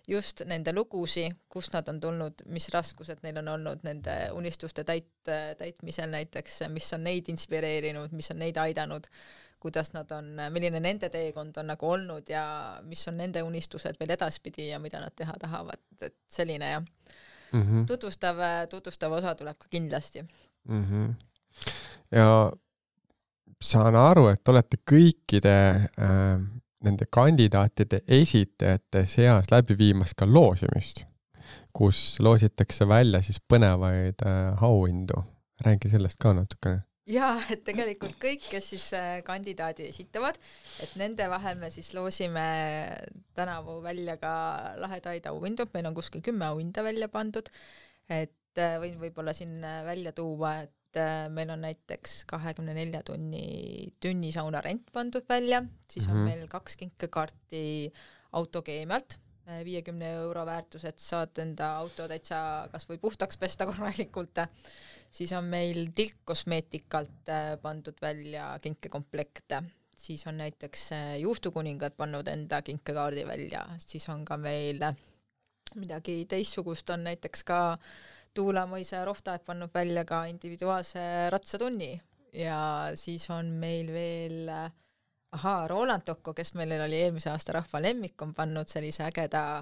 just nende lugusi, kust nad on tulnud, mis raskused neil on olnud nende unistuste täitmisel näiteks, mis on neid inspireerinud, mis on neid aidanud, kuidas nad on, milline nende teekond on nagu olnud ja mis on nende unistused veel edaspidi ja mida nad teha tahavad, et selline ja tutvustav osa tuleb ka kindlasti. Ja saan aru, et olete kõikide nende kandidaatide esitajate seas läbi viimas ka loosimist, kus loositakse välja siis põnevaid auhindu. Räägi sellest ka natukene. Jaa, et tegelikult kõik, kes siis kandidaadi esitavad, et nende vahel me siis loosime tänavu välja ka lahedaid auhindu, meil on kuskil 10 auhinda välja pandud, et võin võib-olla siin välja tuua, et meil on näiteks 24 tunnisauna rent pandud välja, siis on meil 2 kinkekaarti autokeemialt, 50 € väärtus, et saad enda auto täitsa kas või puhtaks pesta korralikult. Siis on meil tilkkosmeetikalt pandud välja kinkekomplekte, siis on näiteks juustukuningad pannud enda kinkekaardi välja, siis on ka meil midagi teistsugust, on näiteks ka Tuulamõisa Rohtaeg pannud välja ka individuaalse ratsatunni ja siis on meil veel Roland Tokko, kes meil oli eelmise aasta rahva lemmik, on pannud sellise ägeda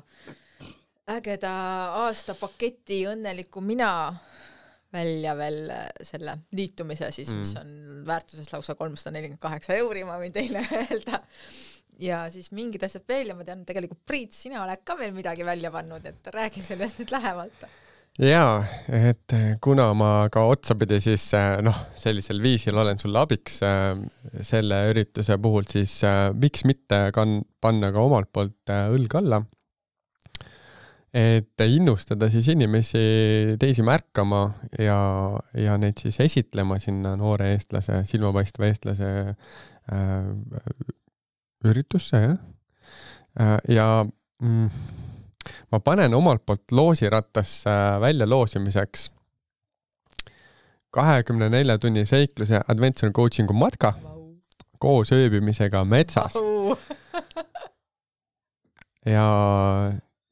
aastapaketi õnneliku mina välja veel selle liitumise siis, mis on väärtuses lausa 348 €, ma võin teile öelda. Ja siis mingid asjad veel ja ma tean, tegelikult Priit, sina oled ka veel midagi välja pannud, et räägi sellest nüüd lähemalt. Jaa, et kuna ma ka otsapidi siis sellisel viisil olen sulle abiks selle ürituse puhul, siis miks mitte panna ka omalt poolt õlg alla, et innustada siis inimesi teisi märkama ja neid siis esitlema sinna noore eestlase, silmapaistva eestlase üritusse, ja ma panen omalt poolt loosirattasse välja loosimiseks 24 tunni seikluse Adventure Coachingu matka koos ööbimisega metsas. Ja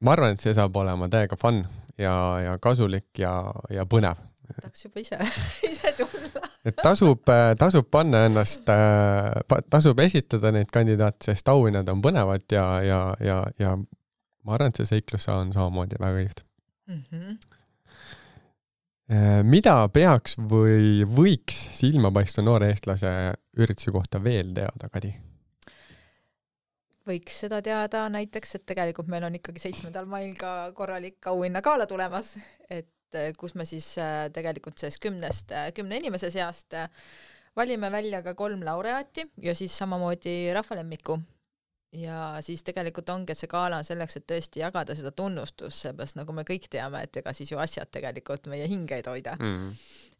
ma arvan, et see saab olema täiega fun ja kasulik ja põnev. Tahaks juba ise tulla. Et tasub panna ennast, tasub esitada neid kandidaate, sest auhinnad on põnevad ja ma arvan, et see seiklus on samamoodi väga kihvt. Mida peaks või võiks silmapaistva noore eestlase ürituse kohta veel teada, Kadi? Võiks seda teada näiteks, et tegelikult meil on ikkagi 7. mail ka korralik auhinnagala tulemas, et kus me siis tegelikult sellest 10 inimese seast valime välja ka 3 laureaati ja siis samamoodi rahvalemmiku. Ja siis tegelikult ongi, et see gala on selleks, et tõesti jagada seda tunnustust, seepärast nagu me kõik teame, et ega siis ju asjad tegelikult meie hingeid hoida.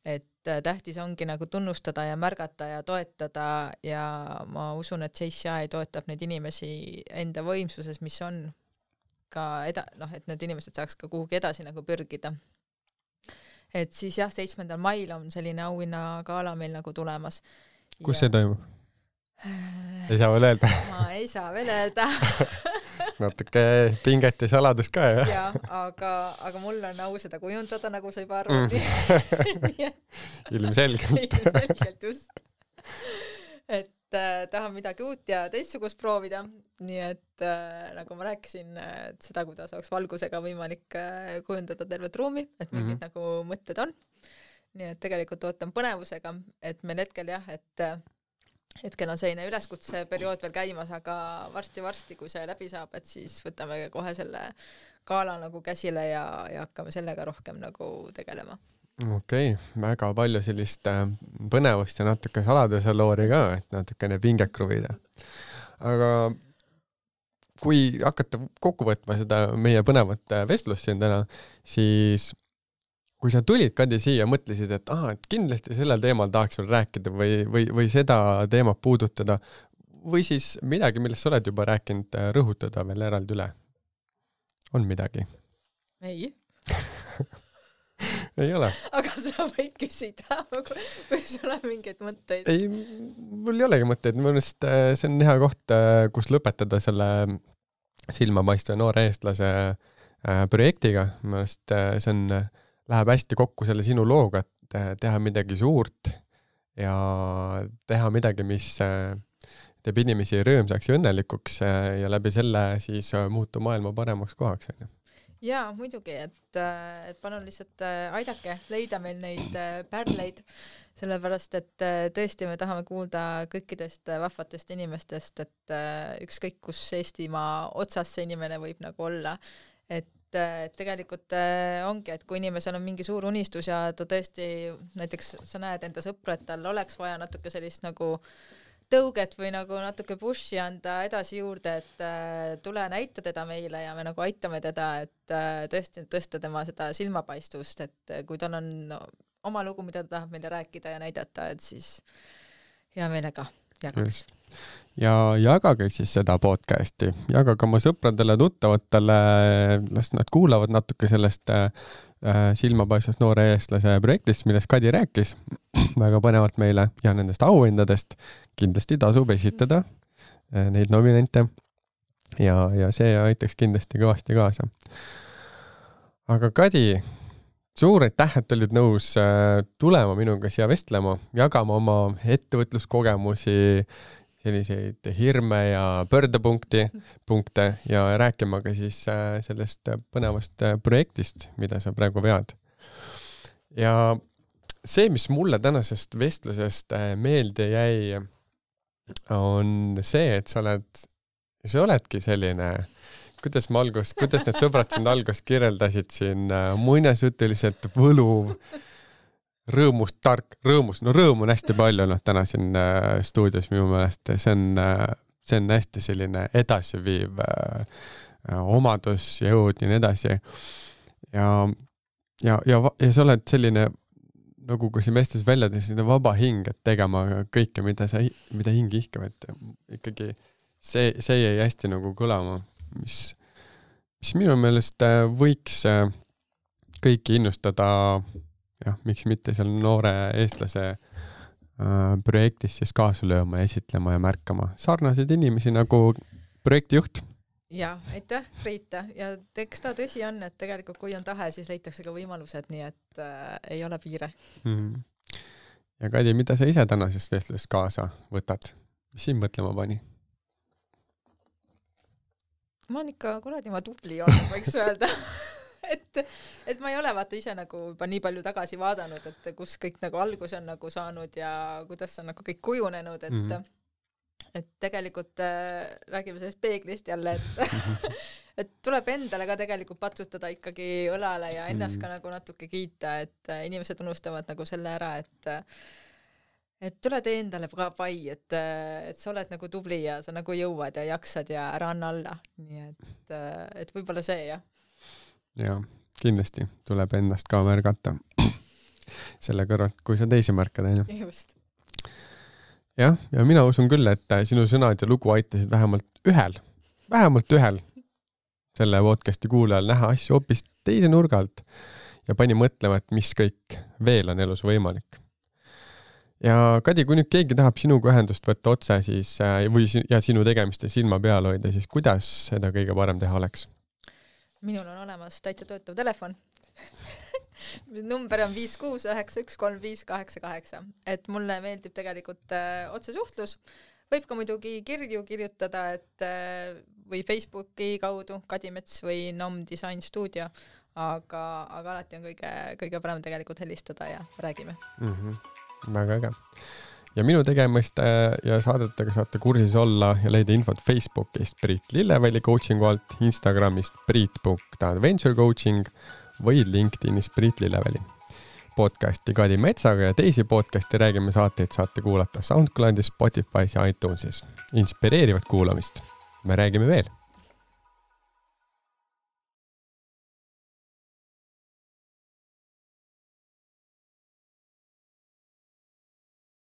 Et tähtis ongi nagu tunnustada ja märgata ja toetada ja ma usun, et JCI toetab neid inimesi enda võimsuses, mis on ka et need inimesed saaks ka kuhugi edasi nagu pürgida. Et siis jah, 7. mail on selline auhinnagala meil nagu tulemas. Kus see toimub? Ei saa veel öelda. Ma ei saa veel öelda. Natuke pinget ja saladust ka, jah? Jaa, aga mul on au seda kujundada, nagu sa juba arvad. Ilmselgelt. Ilmselgelt just. Et tahan midagi uut ja teistsugust proovida. Nii et nagu ma rääkisin, et seda, kuidas oleks valgusega võimalik kujundada tervet ruumi, et mingid nagu mõtted on. Nii et tegelikult ootan põnevusega, et meil hetkel jah, et hetkel on selline üleskutse periood veel käimas, aga varsti, kui see läbi saab, et siis võtame kohe selle gala nagu käsile ja hakkame sellega rohkem nagu tegelema. Okei, väga palju sellist põnevust ja natuke saladuse loori ka, et natukene pinget kruvida. Aga kui hakata kokku võtma seda meie põnevat vestlust siin täna, siis kui sa tulid, Kadi, siia, mõtlesid, et et kindlasti sellel teemal tahaks veel rääkida või seda teemat puudutada või siis midagi, millest sa oled juba rääkinud, rõhutada veel eraldi üle. On midagi? Ei. Ei ole. Aga sa võid küsida, kui sul on mingeid mõtteid. Ei, mul ei olegi mõtteid. Mõnest see on hea koht, kus lõpetada selle silmapaistva noore eestlase projektiga. Mõnest see on läheb hästi kokku selle sinu looga, et teha midagi suurt ja teha midagi, mis teeb inimesi rõõmsaks ja õnnelikuks ja läbi selle siis muutu maailma paremaks kohaks. Jaa, muidugi, et palun lihtsalt aidake leida meil neid pärleid, sellepärast, et tõesti me tahame kuulda kõikidest vahvatest inimestest, et ükskõik kus Eestimaa otsas see inimene võib nagu olla, et tegelikult ongi, et kui inimesel on mingi suur unistus ja ta tõesti, näiteks sa näed enda sõpra, et tal oleks vaja natuke sellist nagu tõuget või nagu natuke pushi anda edasi juurde, et tule näita teda meile ja me nagu aitame teda, et tõesti tõsta tema seda silmapaistvust, et kui tal on oma lugu, mida ta tahab meile rääkida ja näidata, et siis hea meelega jagaks. Ja jagage siis seda podcasti, jagage oma sõpradele, tuttavatele, las nad kuulavad natuke sellest silmapaistvast noore eestlase projektist, millest Kadi rääkis väga põnevalt meile ja nendest auhindadest. Kindlasti tasub esitada neid nominente ja see aitaks kindlasti kõvasti kaasa. Aga Kadi, suur aitäh, et olid nõus tulema minuga siia vestlema, jagama oma ettevõtluskogemusi, selliseid hirme ja pöördepunkte ja rääkima ka siis sellest põnevast projektist, mida sa praegu vead. Ja see, mis mulle tänasest vestlusest meelde jäi, on see, et sa oledki selline, kuidas need sõbrad sind algust kirjeldasid siin muinasjutuliselt võluv, rõõmus, rõõmu on hästi palju täna siin stuudios minu meelest, see on hästi selline edasiviiv omadus, jõud ja nii edasi. Ja sa oled selline, nagu kui see mestes välja selline vaba hing, et tegema kõike, mida hing ihkab, et ikkagi see jäi hästi nagu kõlama, mis minu meelest võiks kõiki innustada, miks mitte seal noore eestlase projektis siis kaasa lööma ja esitlema ja märkama sarnaseid inimesi nagu projektijuht. Ja, aitäh, Priita. Ja eks ta tõsi on, et tegelikult kui on tahe, siis leitakse ka võimalused, nii et ei ole piire. Ja Kadi, mida sa ise tänasest vestlusest kaasa võtad? Mis siin mõtlema pani? Ma olen ikka kuradi ma tubli olnud, võiks öelda. Et et ma ei ole vaata ise nagu juba nii palju tagasi vaadanud, et kus kõik nagu algus on nagu saanud ja kuidas on nagu kõik kujunenud, et tegelikult räägime sellest peeglist jälle, et tuleb endale ka tegelikult patsutada ikkagi õlale ja ennast ka nagu natuke kiita, et inimesed unustavad nagu selle ära, et tule tee endale ka pai, et sa oled nagu tubli ja sa nagu jõuad ja jaksad ja ära anna alla. Nii et võib-olla see, jah. Ja, kindlasti tuleb ennast ka märgata selle kõrvalt, kui sa teisi märkad, on ju. Just. Jah, ja mina usun küll, et sinu sõnad ja lugu aitasid vähemalt ühel selle podcasti kuulajal näha asju hoopis teise nurga alt ja pani mõtlema, et mis kõik veel on elus võimalik. Ja Kadi, kui nüüd keegi tahab sinuga ühendust võtta otse siis, ja sinu tegemiste silma peal hoida, siis kuidas seda kõige parem teha oleks? Minul on olemas täitsa töötav telefon. Number on 569135888. Et mulle meeldib tegelikult otsesuhtlus. Võib ka muidugi kirju kirjutada, et või Facebooki kaudu Kadi Mets või NOM Design Studio, aga alati on kõige parem tegelikult helistada ja räägime. Väga äge. Ja minu tegemist ja saadetega saate kursis olla ja leida infot Facebookist Priit Lilleväli coachingu alt, Instagramist priit.adventurecoaching või LinkedInist Priit Lilleväli. Podcasti Kadi Metsaga ja teisi podcasti Räägime saateid saate kuulata SoundCloudis, Spotify's ja iTunesis. Inspireerivat kuulamist. Me räägime veel.